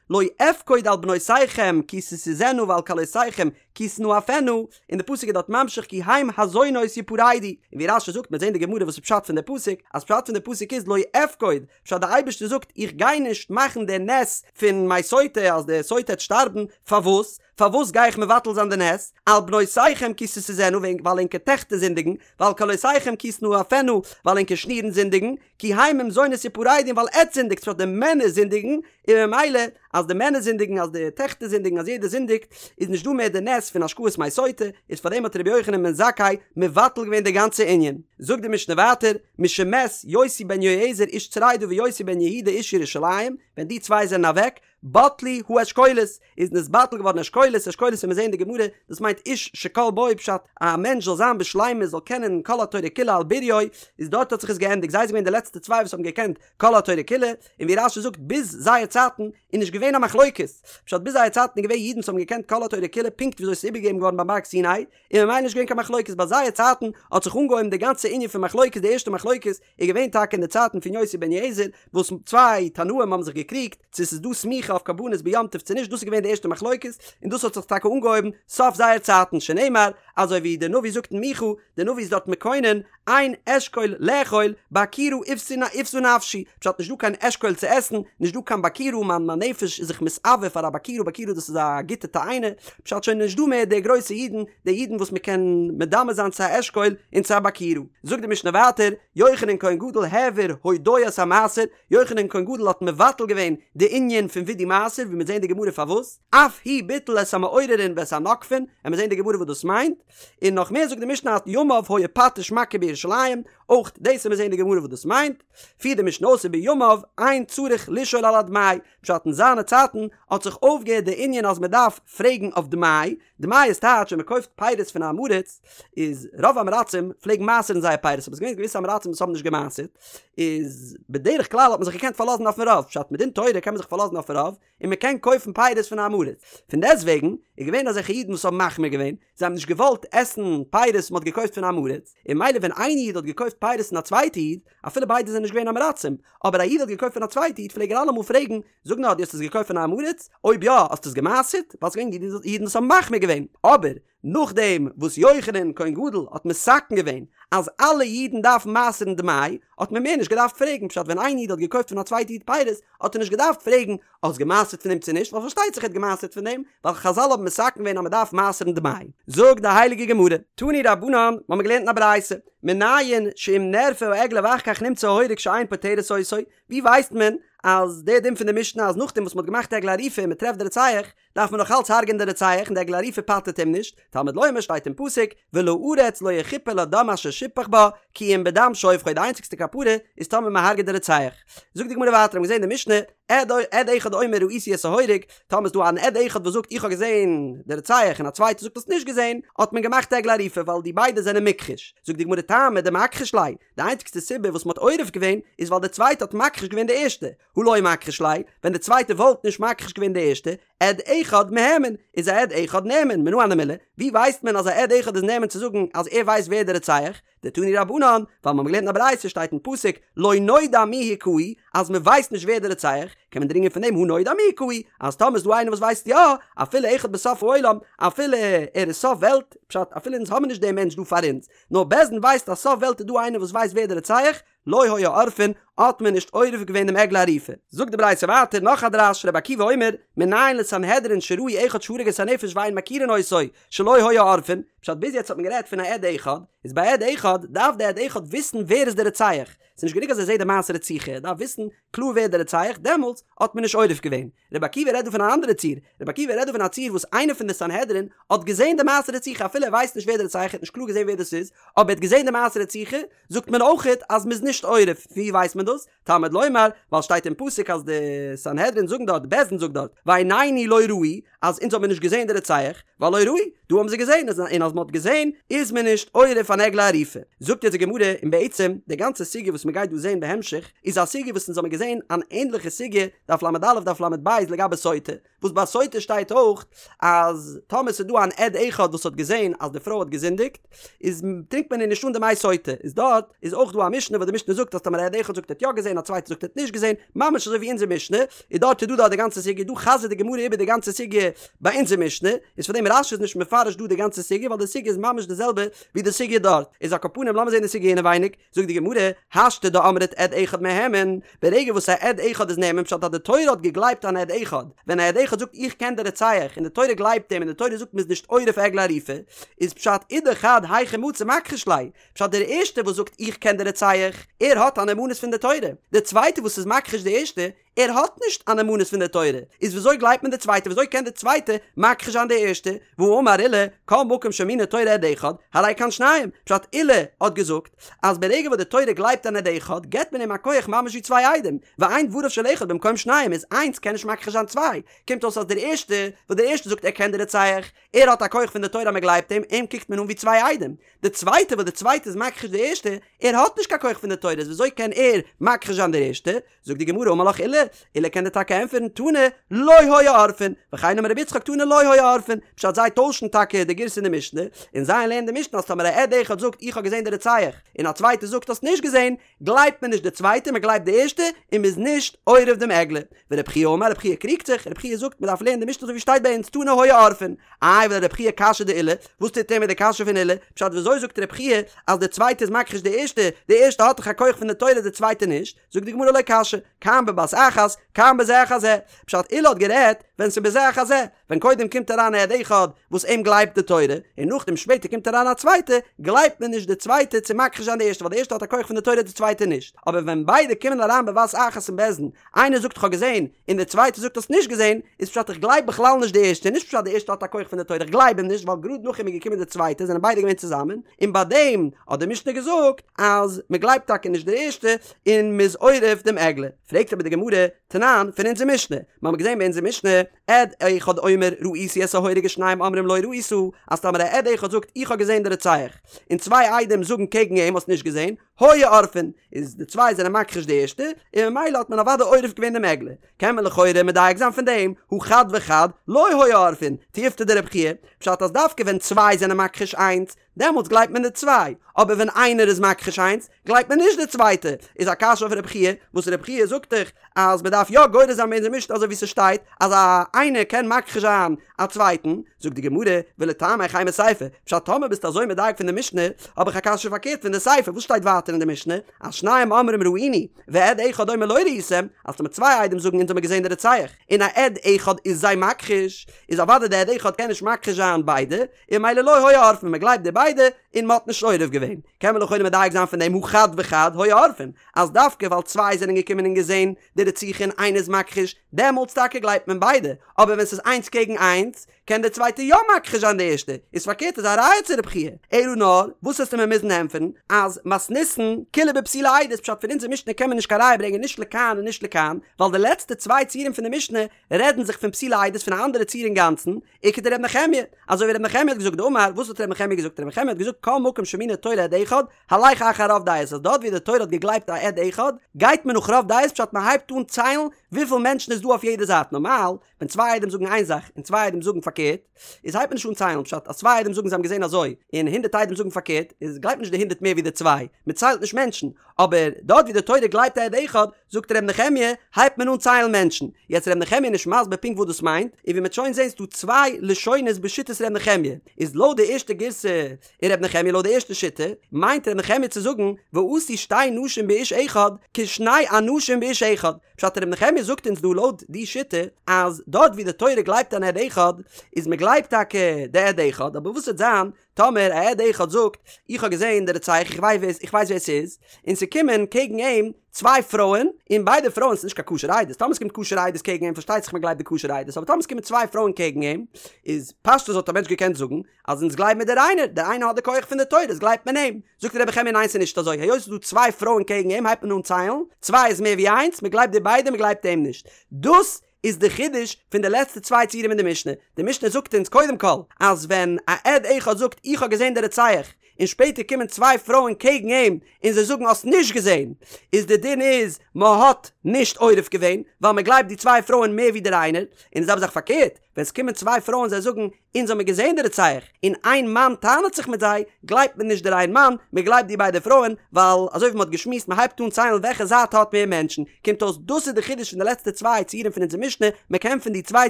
לא אפקוד על בנותיכם כי תשזינה ועל כלותיכם כי תנאפנה, און די פסוק איז דארט ממשיך כי הם הזונות יפרדו, און ווי רש"י זאגט מ'וועט זען די גמרא וואס איז פשט פון די פסוק, אז פשט פון די פסוק איז לא אפקוד, פשט די אייבערשטער זאגט איך גיי נישט מאכן די נס פון מי סוטה אז די סוטה העט שטארבן, פארוואס? פארוואס גיי איך מבטל זיין די נס? על בנותיכם כי תשזינה ווייל ענקער טעכטער זינדיגן, ועל כלותיכם כי תנאפנה ווייל ענקער שנירן זינדיגן, כי הם עם זונות יפרדו ווייל עטץ זינדיגט פשט די מענער זינדיגן, און ממילא. אז די מענער זינדיגן אז די טעכטער זינדיגן אז יעדער זינדיגט, איז נישט דא מער די נס פון השקאת מי סוטה, איז פארדעם האט רבי יוחנן בן זכאי מבטל געווען די גאנצע ענין. זאגט די משנה ווייטער, משמת יוסי בן יועזר איש צרידה ויוסי בן יהודה איש ירושלים, ווען די צוויי זענען אוועק, בטלו האשכולות, איז נתבטל געווארן אשכולות, אשכולות וועט מען זעהן אין די גמרא, דאס מיינט איש שכל בו פשט, א מענטש זאל זיין בשלימות זאל קענען כל התורה כולה על בוריו, איז דארט האט זיך עס געענדיגט, זיי זענען געווען די לעצטע צוויי וואס האבן געקענט כל התורה כולה, און ווי רש"י זאגט ביז זייער צייטן איז נישט געווען א מחלוקת, פשט ביז זייער צייטן איז געווען אידן וואס האבן געקענט כל התורה כולה פונקט וויאזוי עס איז איבערגעגעבן געווארן ביים בארג סיני, און ממילא נישט געווען קיין מחלוקת, ביי זייער צייטן האט זיך אנגעהויבן די גאנצע ענין פון מחלוקת, די ערשטע מחלוקת איז געווען טאקע אין די צייטן פון יוסי בן יועזר וואס צוויי תנאים האבן זיך געקריגט צו עס איז דא סמיכה אויף קרבנות ביום טוב צו נישט, דאס איז געווען די ערשטע מחלוקת, און דאס האט זיך טאקע אנגעהויבן סוף זייער צייטן, שנאמר אזוי ווי דער נביא זאגט אין מיכה, דער נביא איז דארט מקונן, אין אשכול לאכול, ביכורה איוותה נפשי, פשט נישט דא קיין אשכול צו עסן, נישט דא קיין ביכורה, מיין מיין נפש איז זיך מתאוה פאר א ביכורה, ביכורה דאס איז א גוטע תאנה, פשט שוין נישט דא מער די גרויסע אידן, די אידן וואס מען קען מדמה זיין צו א אשכול און צו א ביכורה. זאגט די משנה ווייטער, יוחנן כהן גדול העביר הודאת המעשר, יוחנן כהן גדול האט מבטל געווען די ענין פון וידוי מעשר, ווי מיר זעהן די גמרא פארוואס, אף הוא ביטל את המעוררין ואת הנוקפין, עמיר זעהן די גמרא וואס דאס מיינט, און נאך מער זאגט די משנה אז ימיו היה פטיש מכה בירושלים, אויך דאס עמיר זעהן די גמרא וואס דאס מיינט, פירט די משנה אויס ובימיו אין צריך לשאול על הדמאי, פשט אין זיינע צייטן האט זיך אויפגעהערט די ענין אז מען דארף פרעגן אויף דמאי, דמאי איז טייטש ווען מען קויפט פירות פון א עם הארץ, איז רוב עם הארצים פלעגן מעשר'ן זייער פירות אבער עס איז געווען געוויסע עם הארצים וואס האבן נישט געמעשר'ט, איז בדרך כלל האט מען זיך געקענט פארלאזן אויפן רוב, פשט מדין תורה קען מען זיך פארלאזן אויפן רוב, און מען קען קויפן פירות פון א עם הארץ. פון דעסטוועגן איז געווען אזעלכע אידן וואס האבן מחמיר געווען, זיי האבן נישט געוואלט עסן פירות וואס מען האט געקויפט פון א עם הארץ, און ממילא ווען איין איד האט געקויפט פירות פון א צווייטע איד, אפילו ביידע זענען נישט געווען עם הארצים, אבער א איד האט געקויפט פון א צווייטע איד פלעג ער אלעמאל פרעגן, זאג נאר דו האסט עס געקויפט פון א עם הארץ? אויב יא האסטו עס געמעשר'ט? ווייל ס'איז געווען אידן וואס האבן מחמיר געווען. אבער נאכדעם וואס יוחנן כהן גדול האט מתקן געווען אז אלע אידן דארפן מעשר'ן דמאי, האט מען מער נישט געדארפט פרעגן, פשט ווען איין איד האט געקויפט פון א צווייטע איד פירות, האט ער נישט געדארפט פרעגן האסט געמעשר'ט פון דעם צו נישט, ווייל פארשטייט זיך ער האט געמעשר'ט פון דעם, ווייל חזל האבן מתקן געווען אז מען דארף מעשר'ן דמאי. זאגט די הייליגע גמרא, תנו רבנן, מ'האמיר געלערנט אין א ברייתא, מנין שאם נערפה העגלה ואחר כך נמצא ההורג שאין פוטרת אותו, ווי ווייסט מען אז דער דין פון די משנה אז נאכדעם וואס מ'האט געמאכט עגלה ערופה און מ'טרעפט די רוצח, דארף מען נאך אלץ הרג'ען די רוצח און די עגלה ערופה פטר'ט אים נישט, תלמוד לומר שטייט אין פסוק, ולארץ לא יכפר לדם אשר שפך בה, כי אם בדם שופכו די איינציגסטע כפרה איז טאמער מען הרג'עט די רוצח. זאגט די גמרא ווייטער האבן געזען די משנה, עד עד אחד אומר ראיתי את ההורג, טאמער איז דא אן עד אחד וואס זאגט איך האב געזען די רוצח און א צווייטער זאגט האסט נישט געזען, האט מען געמאכט עגלה ערופה ווייל די ביידע זענען מוכחש. זאגט די גמרא טעמא דמכחיש ליה, די איינציגסטע סיבה וואס מען האט עורף געווען איז ווייל די צווייטע האט מכחיש געווען די ערשטע, הא לא מכחיש ליה, ווען די צווייטע וואלט נישט מכחיש געווען די ערשטע, עד אחד מהימן, איז א עד אחד נאמן, מנא הני מילי, ווי ווייסט מען אז א עד אחד איז נאמן צו זאגן אז ער ווייסט ווער די רוצח? דתנו רבנן, ווייל מ'האט געלערנט אין א ברייתא שטייט אין פסוק לא נודע מי הכהו, אז מ'ווייסט נישט ווער די רוצח, קען מען דרינגען פון דעם הא נודע מי הכהו, אז טאמער איז דא איינער וואס ווייסט יא, אפילו אחד בסוף העולם, אפילו ער איז סוף וועלט, פשט אפילו אונז האבן נישט דעם מענטש דא פאר אונז, נאר בית דין ווייסט אז סוף וועלט איז דא איינער וואס ווייסט ווער די רוצח, לא היו עורפין, האט מען נישט עורף געווען דעם עגלה ערופה. זאגט די ברייתא ווייטער נאך א דרש, רבי עקיבא אומר, מנין לסנהדרין שראו אחד שהרג את הנפש ואין מכירין אותו, שלא היו עורפין, פשט ביז יעצט האט מען גערעדט פון א עד אחד, איז ביי עד אחד דארף די עד אחד וויסן ווער איז די רוצח, ס'איז נישט גענוג אז ער זעט די מעשה רציחה, ער דארף וויסן קלאר ווער די רוצח, דעמאלטס האט מען נישט עורף געווען. רבי עקיבא רעדט דא פון אן אנדערע ציור, רבי עקיבא רעדט דא פון א ציור וואס איינער פון די סנהדרין האט געזען די מעשה רציחה אפילו ער ווייסט נישט ווער די רוצח, ער האט נישט קלאר געזען ווער דאס איז, אבער ער האט געזען די מעשה רציחה, זאגט מען אויכעט אז מ'איז נישט עורף, פון ווי ווייסט מען דאס? תלמוד לומר, ווייל שטייט אין פסוק אז די סנהדרין זאגן דארט, בית דין זאגט דארט, ועינינו לא ראו, אז אונז האבן מיר נישט געזען די רוצח, והלא ראו, דא האבן זיי געזען, און אז מ'האט געזען איז מען נישט עורף אן עגלה ערופה. זאגט יעצט די גמרא, און בעצם די גאנצע סוגיא וואס מ'גייט דא זען בהמשך, איז א סוגיא וואס אונז האבן געזען אן ענדליכע סוגיא, דף ל"א דף ל"ב לגבי סוטה, וואס ביי סוטה שטייט אויך אז טאמער ס'איז דא אן עד אחד וואס האט געזען אז די פרוי האט געזינדיגט איז טרינקט מען איר נישט אן די מי סוטה, איז דארט איז אויך דא א משנה וואס די משנה זאגט אז טאמער א עד אחד זאגט ער האט יא געזען א צווייטער זאגט ער האט נישט געזען, ממש אזוי ווי אונזער משנה, איז דארט איז דא דארט די גאנצע סוגיא, דא חזר'ט די גמרא איבער די גאנצע סוגיא ביי אונזער משנה, איז פאר דעם רש"י איז נישט מפרש דא די גאנצע סוגיא ווייל די סוגיא איז ממש די זעלבע ווי די סוגיא דארט, איז על כל פנים לאמיר זען די סוגיא אינעווייניג. זאגט די גמרא, השתא דאמרת עד אחד מהימן, ברגע וואס א עד אחד איז נאמן פשט אז די תורה האט געגלייבט אן עד אחד, ווען א עד אחד זאגט איך קען די רוצח און די תורה גלייבט אים און די תורה זאגט מ'איז נישט עורף עגלה ערופה, איז פשט אידך חד היכי מצי מכחיש ליה, פשט דער ערשטער וואס זאגט איך קען די רוצח, ער האט א נאמנות פון די תורה, דער צווייטער וואס איז מכחיש די ערשטע, ער האט נישט א נאמנות פון די תורה, איז וויאזוי גלייבט מען די צווייטע וויאזוי קען די צווייטע מכחיש זיין די ערשטע, והאמר עולא, כל מקום שהאמינה תורה עד אחד, הרי כאן שניים, פשט עולא האט געזאגט אז ברגע וואס די תורה גלייבט אן עד אחד געבט מען אים א כח ממש ווי צוויי עדים, ואין דבריו של אחד במקום שניים איז איינס קען נישט מכחיש זיין צוויי, קומט אויס אז דער ערשטע וואס דער ערשטע זאגט ער קען די רוצח, ער האט א כח פון די תורה אז מען גלייבט אים, אים קוקט מען אן ווי צוויי עדים. די צווייטע וואס די צווייטע איז מכחיש די ערשטע, ער האט נישט קיין כח פון די תורה איז וויאזוי קען ער מכחיש זיין דער ערשטע? זאגט די גמרא אמר לך עולא, עולא קען דיר טאקע ענטפערן תנא לא היו עורפין, וכן אמר רבי יצחק תנא לא היו עורפין, פשט זיי טוישן טאקע די גירסא אין די משנה, און זיי לערנען די משנה אז טאמער א עד אחד זאגט איך האב געזען די רוצח, און א צווייטער זאגט האסט נישט געזען, גלייבט מען נישט די צווייטע מען גלייבט די ערשטע, און מען איז נישט עורף דעם עגלה. ורבי חייא אמר רבי חייא קריגט זיך, רבי חייא זאגט מען דארף לערנען די משנה אזוי ווי שטייט ביי אונז תנא היו עורפין. איי ולרבי חייא קשיא דעולא, וואס טוט ער מיט די קשיא פון עולא? פשט וויאזוי זאגט רבי חייא אז די צווייטע איז מכחיש די ערשטע, די ערשטע האט דאך א כח פון די תורה די צווייטע נישט? זאגט די גמרא לא קשיא, כאן בבת אחת, כאן בזה אחר זה. פשט עולא האט גערעדט ווען ס'איז בזה אחר זה, ווען קודם קומט אריין א עד אחד וואס אים גלייבט די תורה, און נאכדעם שפעטער קומט אריין א צווייטע, גלייבט מען נישט די צווייטע צו מכחיש זיין די ערשטע ווייל די ערשטע האט א כח פון די תורה די צווייטע נישט. אבער ווען ביידע קומען אריין בבת אחת אין בית דין, איינער זאגט כ'האב געזען, און דער צווייטער זאגט האסט נישט געזען, איז פשט איך גלייב בכלל נישט די ערשטע, נישט פשט די ערשטע האט א כח פון די תורה, איך גלייב אים נישט ווייל גראד נאך אים איז געקומען די צווייטע זענען ביידע געווען צוזאמען, און ביי דעם האט די משנה געזאגט אז מען גלייבט טאקע נישט די ערשטע און מען איז עורף דעם עגלה. פרעגט אבער די גמרא, תנן, פון אונזער משנה, מיר האבן געזען ביי אונזער משנה, עד אחד אומר ראיתי את ההורג ושניים אומרים לא ראית, אז טאמער א עד אחד זאגט איך האב געזען די רוצח, און צוויי עדים זאגן קעגן אים האסט נישט געזען, היו עורפין, איז די צוויי זענען מכחיש די ערשטע, און ממילא האט מען אוודאי עורף געווען דעם עגלה. קען מען לכאורה מדייק זיין פון דעם, הא חד וחד, לא היו עורפין, תיובתא דרבי חייא, פשט אז דווקא ווען צוויי זענען מכחיש איינס, דעמאלטס גלייבט מען די צוויי, אבער ווען איינער איז מכחיש איינס, גלייבט מען נישט די צווייטע, איז א קשיא אויף רבי חייא, וואס רבי חייא זאגט דאך אז מען דארף יא גורס זיין ביי אונזער משנה אזוי ווי ס'שטייט אז א איינער קען מכחיש זיין א צווייטן, זאגט די גמרא, ולטעמיך אימא סיפא, פשט טאמער ביסטו אזוי מדייק פון די משנה, האב איך א קשיא פארקערט פון די סיפא, וואס שטייט ווייטער אין די משנה, אז שניים אומרים ראינו, ועד אחד אומר לא ראיתם, אז טאמער צוויי עדים זאגן אונז האמיר געזען די רוצח, און א עד אחד איז זיי מכחיש, איז אוודאי די עד אחד קען נישט מכחיש זיין ביידע, און ממילא לא היו עורפין, מען גלייבט די ביידע, און מען האט נישט עורף געווען. קען מען לכאורה מדייק זיין פון דעם הא חד וחד היו עורפין, אז דווקא ווייל צוויי זענען געקומען און געזען די רציחה און איינער איז מכחיש, דעמאלטס טאקע גלייבט מען ביידע, אבער ווען ס'איז איינס קעגן איינס, קען דער צווייטער יא מכחיש זיין די ערשטע, איז פארקערט איז א ראיה צו רבי חייא. אלא נאר, וואס וועסטו מיר מוזן ענטפערן, אז מתניתין כולה בפסולי עדות, פשט פון אונזער משנה קען מען נישט קיין ראיה ברענגען נישט לכאן און נישט לכאן, ווייל די לעצטע צוויי ציורים פון די משנה רעדן זיך פון פסולי עדות פון א אנדערע ציור אינגאנצן, וכדר' נחמיה, אזוי ווי ר' נחמיה האט געזאגט דאמר, וואס האט ר' נחמיה געזאגט? ר' נחמיה האט געזאגט כל מקום שהאמינה תורה עד אחד, הלך אחר רוב דעות, אז דארט ווי די תורה האט געגלייבט א עד אחד, גייט מען נאך רוב דעות פשט מען הייבט אן ציילן וויפיל מענטשן איז דא אויף יעדע זייט, נארמאל ווען צוויי עדים זאגן איין זאך און צוויי עדים זאגן פארקערט, איז הייבט מען נישט אן ציילן פשט אז צוויי עדים זאגן זיי האבן געזען אזוי און הונדערט עדים זאגן פארקערט, איז גלייבט נישט די הונדערט מער ווי די צוויי, מען ציילט נישט מענטשן, אבער דארט ווי די תורה גלייבט א עד אחד, זאגט ר' נחמיה, הייבט מען אן ציילן מענטשן. יעצט ר' נחמיה איז נישט מסביר פונקט וואס דאס מיינט, און ווי מ'עט שוין זעהן ס'דא צוויי לשונות בשיטת ר' נחמיה, איז לויט די ערשטע גירסא אין ר' נחמיה לויט די ערשטע שיטה, מיינט ר' נחמיה צו זאגן ועשו שתי נשים באיש אחד כשני אנשים באיש אחד, פשט ר' נחמיה זאגט אונז דא לויט די שיטה אז דארט ווי די תורה גלייבט אן עד אחד, איז מ'גלייבט טאקע די עד אחד, אבער וואס וועט זיין טאמער א עד אחד זאגט, איך האב געזען די רוצח, איך ווייס איך ווייס ווער ס'איז, און ס'קומען קעגן אים צוויי פרויען, און ביידע פרויען ס'איז נישט קיין כשר עדות, טאמער ס'קומט כשר עדות קעגן אים פארשטייט זיך מ'גלייבט די כשר עדות, אבער טאמער ס'קומען צוויי פרויען קעגן אים, איז פשטות וואלט א מענטש געקענט זאגן, אז אונז גלייבן מיר דער איינער, דער איינער האט די כח פון די תורה, איז גלייבט מען אים. זאגט רבי נחמיה ניין ס'איז נישט אזוי, היות ס'איז דא צוויי פרויען קעגן אים הייבט מען אן ציילן, צוויי איז מער ווי איינס, מ'גלייבט די ביידע מ'גלייבט אים נישט. דאס איז די חידוש פון די לעצטע צוויי ציורים אין די משנה. די משנה זאגט אונז קודם כל אז ווען א עד אחד זאגט איך האב געזען די רוצח און שפעטער קומען צוויי פרויען קעגן אים און זיי זאגן האסט נישט געזען איז די דין איז מען האט נישט עורף געווען ווייל מען גלייבט די צוויי פרויען מער ווי דער איינער און די זעלבע זאך פארקערט ווען עס קומען צוויי פרויען זיי זאגן אונז האמיר געזען די רוצח, און איין מאן טענה'ט זיך מיט זיי, גלייבט מען נישט דער איין מאן, מען גלייבט די ביידע פרויען, ווייל אזוי ווי מען האט געשמועסט מען הייבט אן ציילן וועלכע זייט האט מער מענטשן, קומט אויס דאס איז די חידוש פון די לעצטע צוויי ציורים פון אונזער משנה, מען קען פון די צוויי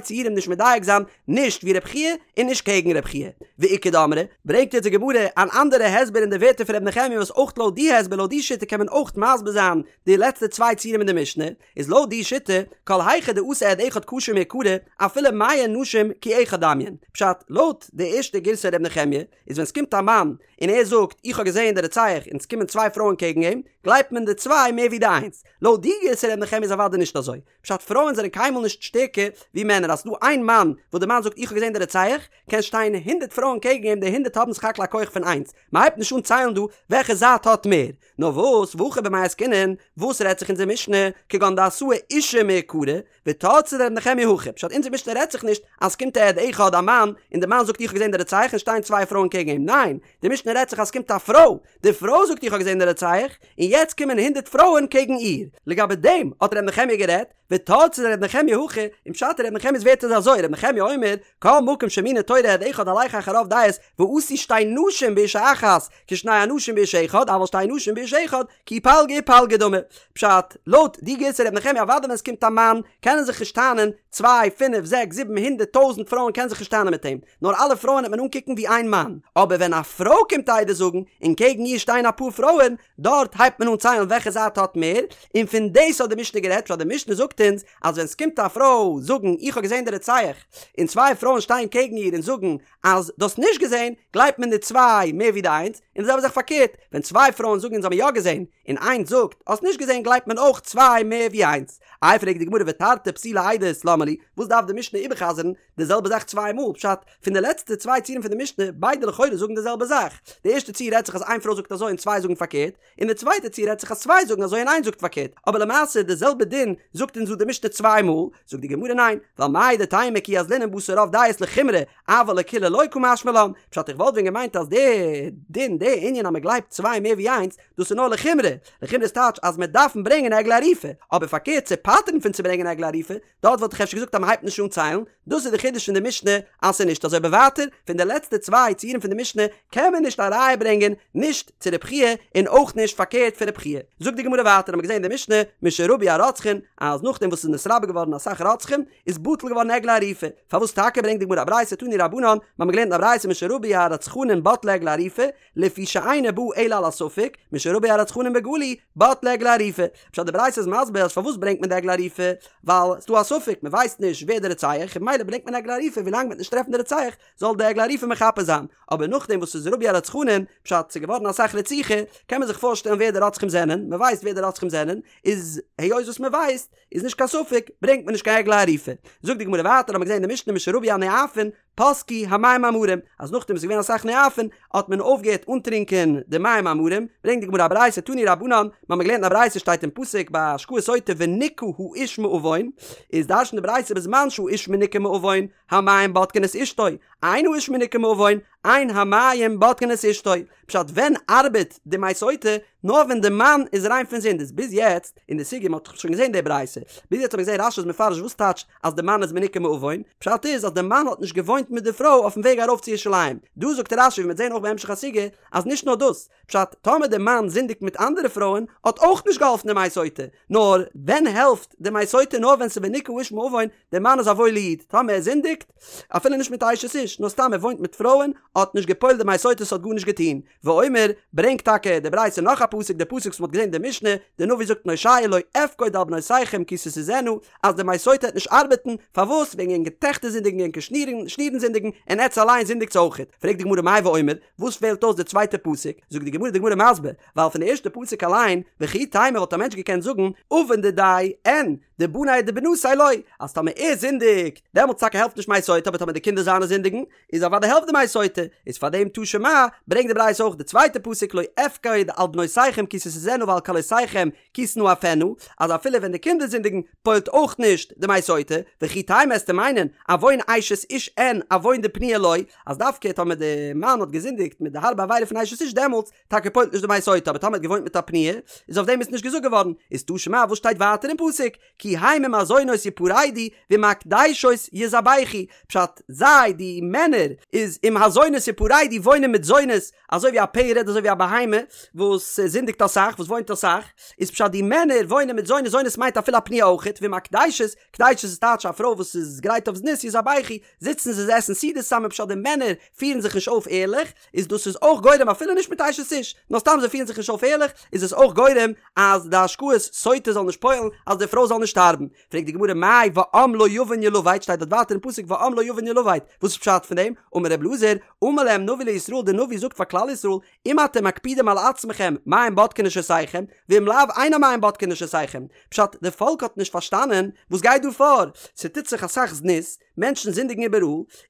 ציורים נישט מדייק זיין נישט ווי רב חייא און נישט קעגן רב חייא. ואיכא דאמרי, ברענגט יעצט די גמרא אן אנדערע הסבר אין די ווערטער פון ר' נחמיה וואס אויך לויט די הסבר לויט די שיטה קען מען אויך מסביר זיין די לעצטע צוויי ציורים אין די משנה, איז לויט די שיטה, כל היכא דאתא עד אחד כשר מעיקרא, אפילו מאה נשים כי אחד דמיין. פשט, לויט די ערשטע גירסא ר' נחמיה, איז ווען ס'קומט א מאן און ער זאגט איך האב געזעהן די רוצח און ס'קומען צוויי פרויען קעגן אים, גלייבט מען די צוויי מער ווי די איינס. לויט די גירסא ר' נחמיה איז אוודאי נישט אזוי. פשט פרויען זענען קיינמאל נישט שטערקער ווי מענער אז ס'דא איין מאן וואס די מאן זאגט איך האב געזען די רוצח, קען שטיין הונדרעט פרויען קעגן אים די הונדרעט האבן סך הכל א כח פון איינס, מ'הייבט נישט אן ציילן דא וועלכע זייט האט מער. נאר וואס, והכא במאי עסקינן, וואס רעדט זיך אונזער משנה, כגון דאתאי אשה מעיקרא, ותרצה דר' נחמיה הכי, פשט אונזער משנה רעדט זיך נישט אז ס'קומט א עד אחד א מאן, און די מאן זאגט איך האב געזען די רוצח און שטייען צוויי פרויען קעגן אים, ניין, די משנה רעדט זיך אז ס'קומט א פרוי, די פרוי זאגט איך האב געזען די רוצח, און יעצט קומען הונדרעט פרויען קעגן איר. לגבי דעם האט ר' נחמיה גערעדט, ותרצה דר' נחמיה הכי, און פשט אין ר' נחמיה'ס ווערטער איז אזוי, ר' נחמיה אומר, כל מקום שהאמינה תורה עד אחד הלך אחר רוב דעות, ועשו שתי נשים באשה אחת, כשני אנשים באיש אחד, אבל שתי נשים באיש אחד, כי פלגא ופלגא דמי. פשט, לויט די גירסא ר' נחמיה אוודאי ווען עס קומט א מאן, קענען זיך נישט טענה'ן, צוויי, פינף, זעקס, זיבן, הונדערט, טויזנט פרויען קענען זיך נישט טענה'ן מיט אים, נאר אלע פרויען וועט מען אנקוקן ווי איין מאן. אבער ווען א פרוי קומט עדות זאגן, און קעגן איר שטייען אפאר פרויען, דארט הייבט מען אן ציילן וועלכע זייט האט מער, און פון דאס האט די משנה גערעדט, פשט די משנה זאגט אונז אז ווען ס'קומט א פרוי זאגן איך האב געזען די רוצח, און צוויי פרויען שטייען קעגן איר און זאגן אז דו האסט נישט געזען, גלייבט מען די צוויי מער ווי די איינס, און די זעלבע זאך פארקערט, ווען צוויי פרויען זאגן אונז האבן יא געזען, און איינס זאגט האסט נישט געזען גלייבט מען אויך צוויי מער ווי איינס. איי פרעגט די גמרא ותרתי פסולי עדות למה לי, וואס דארף די משנה איבערחזר'ן די זעלבע זאך צוויי מאל, פשט, פון די לעצטע צוויי ציורים פון די משנה, ביידע לכאורה זאגן די זעלבע זאך, די ערשטע ציור רעדט זיך אז איין פרוי זאגט אזוי און צוויי זאגן פארקערט, און די צווייטע ציור רעדט זיך אז צוויי זאגן אזוי און איינס זאגט פארקערט, אבער למעשה די זעלבע דין זאגט אונז דא די משנה צוויי מאל, זאגט די גמרא ניין, ווייל מהו דתימא כי אזלינן בתר רוב דעות לחומרא, אבל לקולא לא קא משמע לן, פשט איך וואלט ווען געמיינט אז די דין די ענין אז מען גלייבט צוויי מער ווי איינס, דאס איז נאר לחומרא, לחומרא איז טייטש אז מען דארפן ברענגען עגלה ערופה, אבער פארקערט צו פטר'ן פון צו ברענגען עגלה ערופה, דארט וואלט איך אפשר געזאגט אז מען הייבט נישט אן ציילן, דאס איז די חידוש פון די משנה אז ס'איז נישט אזוי אבער ווייטער פון די לעצטע צוויי ציורים פון די משנה קען מען נישט א ראיה ברענגען נישט צו רב חייא און אויך נישט פארקערט פון רב חייא. זאגט די גמרא ווייטער האט מען געזען אין די משנה משרבו הרוצחין אז נאכדעם וואס ס'איז נתרבה געווארן אסאך רוצחים איז בטל געווארן עגלה ערופה, פארוואס טאקע ברענגט די גמרא א ברייתא תנו רבנן, מ'האמיר געלערנט אין א ברייתא משרבו הרצחנין בטלה עגלה ערופה, לפי שאינה באה אלא על הספק, משרבו הרצחנין בגלוי, בטלה עגלה ערופה. פשט די ברייתא איז מסביר אז פארוואס ברענגט מען די עגלה ערופה, ווייל ס'דא א ספק, מ'ווייסט נישט ווער די רוצח, און ממילא ברענגט מען עגלה ערופה ווילאנג מ'וועט נישט טרעפן די רוצח, זאל די עגלה ערופה מכפר זיין. אבער נאכדעם וואס ס'איז רבו הרצחנין, פשט ס'איז געווארן אסאך רציחה, קען מען זיך פארשטעלן ווער די רוצחים זענען, מ'ווייסט ווער די רוצחים זענען, איז היות וואס מ'ווייסט, איז נישט קיין ספק, ברענגט מען נישט קיין עגלה ערופה. זאגט די גמרא ווייטער, האמיר געזען אין די משנה משרבו הנואפין, פסקו המים המרים, אז נאכדעם וואס איז געווען אסאך נואפין, האט מען אויפגעהערט אנטרינקען די מים המרים, ברענגט די גמרא א ברייתא תנו רבנן, מיר האבן געלערנט אין א ברייתא שטייט אין פסוק ביי השקאת סוטה ונקה האיש מעון, איז דרש'נט די ברייתא בזמן שהאיש מנוקה מעון, המים בודקין את אשתו, אין האיש מנוקה מעון, אין המים בודקין את אשתו, פשט ווען ארבעט די מי סוטה? נאר ווען די מאן איז ריין פון זינד איז ביז יעצט אין די סוגיא מען האט שוין געזען די ברייתא ביז יעצט האט מען געזען רש"י איז מפרש וואס טייטש אז די מאן איז מנוקה מעון פשט איז אז די מאן האט נישט געוואוינט מיט די פרוי אויפן וועג ארויף צו ירושלים דא זאגט רש"י ווי מ'וועט זען אויך בהמשך הסוגיא אז נישט נאר דאס פשט טאמער די מאן זינדיגט מיט אנדערע פרויען האט אויך נישט געהאלפן די מי סוטה נאר ווען העלפט די מי סוטה נאר ווען ס'איז ונקה האיש מעון דער מאן איז א וואוילע איד, טאמער ער זינדיגט, אפילו נישט מיט אשת איש, נאר סתם ער וואוינט מיט פרויען, האט נישט געפועלט די מי סוטה ס'האט גארנישט געטון. ואומר, ברענגט טאקע די ברייתא נאך א פסוק, די פסוק וואס מ'האט געזען אין די משנה, די נביא זאגט אין הושע לא אפקוד על בנותיכם כי תזנינה, אז די מי סוטה העט נישט ארבעטן, פארוואס? וועגן ענקער טעכטער זינדיגן ענקער שנירן שנירן זינדיגן, און עטץ אליין זינדיגטס אויכעט. פרעגט די גמרא מאי ואומר, וואס פעלט אויס די צווייטע פסוק? זאגט די גמרא, די גמרא מסביר, ווייל פון די ערשטע פסוק אליין, וכי תימא וואלט א מענטש געקענט זאגן, עוון דידיה אין, דבניה דבנתיה לא, אז טאמער ער זינדיגט, דעמאלטס טאקע העלפט נישט מי סוטה, אבער טאמער די קינדער זיינע זינדיגן, איז אוודאי העלפט די מי סוטה, איז פאר דעם תא שמע, ברענגט די ברייתא אויך די צווייטע פסוק לא אפקוד על בנותיכם כי תזנינה ועל כלותיכם כי תנאפינה, אז אפילו ווען די קינדער זינדיגן, פועלט אויך נישט די מי סוטה, וכי תימא עסטו מיינען, עוון אשת איש אין, עוון דפנויה לא, אז דווקא טאמער די מאן האט געזינדיגט מיט די הארבע עבירה פון אשת איש דעמאלטס, טאקע פועלט נישט די מי סוטה אבער טאמער האט געוואוינט מיט א פנויה איז אויף דעם איז נישט געזאגט געווארן איז תא שמע וואס שטייט ווייטער אין פסוק כי הם עם הזונות יפרדו ועם הקדשות יזבחו פשט זיי די מענער איז עם הזונות יפרדו וואוינען מיט זונות אזוי ווי א פרד אזוי ווי א בהמה וואס זינדיגט אסאך וואס וואוינט אסאך איז פשט די מענער וואוינען מיט זונות זונות מיינט אפילו א פנויה אויכעט ועם הקדשות קדשות איז טייטש א פרוי וואס איז גרייט אויף זנות יזבחו זיצן זיי עסן סעודות צוזאמען פשט די מענער פירן זיך נישט אויף ערליך איז דאס איז אויך גורם אפילו נישט מיט אשת איש, נאר סתם זיי פירן זיך נישט אויף ערליך, איז עס אויך גורם אז די השקאת סוטה זאל נישט פועל'ן, אז די פרוי זאל נישט שטארבן. שטארבן. פרעגט די גמרא מאי ועם לא יבין ילבט, שטייט דארט ווייטער אין פסוק ועם לא יבין ילבט, וואס איז פשט פון דעם? אמר ר' אלעזר, אמר להם נביא לישראל, דער נביא זאגט פאר כלל ישראל, אם אתם מקפידים על עצמכם, מים בודקין נשותיכם, ואם לאו אין המים בודקין נשותיכם. פשט, די פאלק האט נישט פארשטאנען וואס גייט דא פאר, ס'טוט זיך אסאך זנות, מענטשן זינדיגן איבעראל,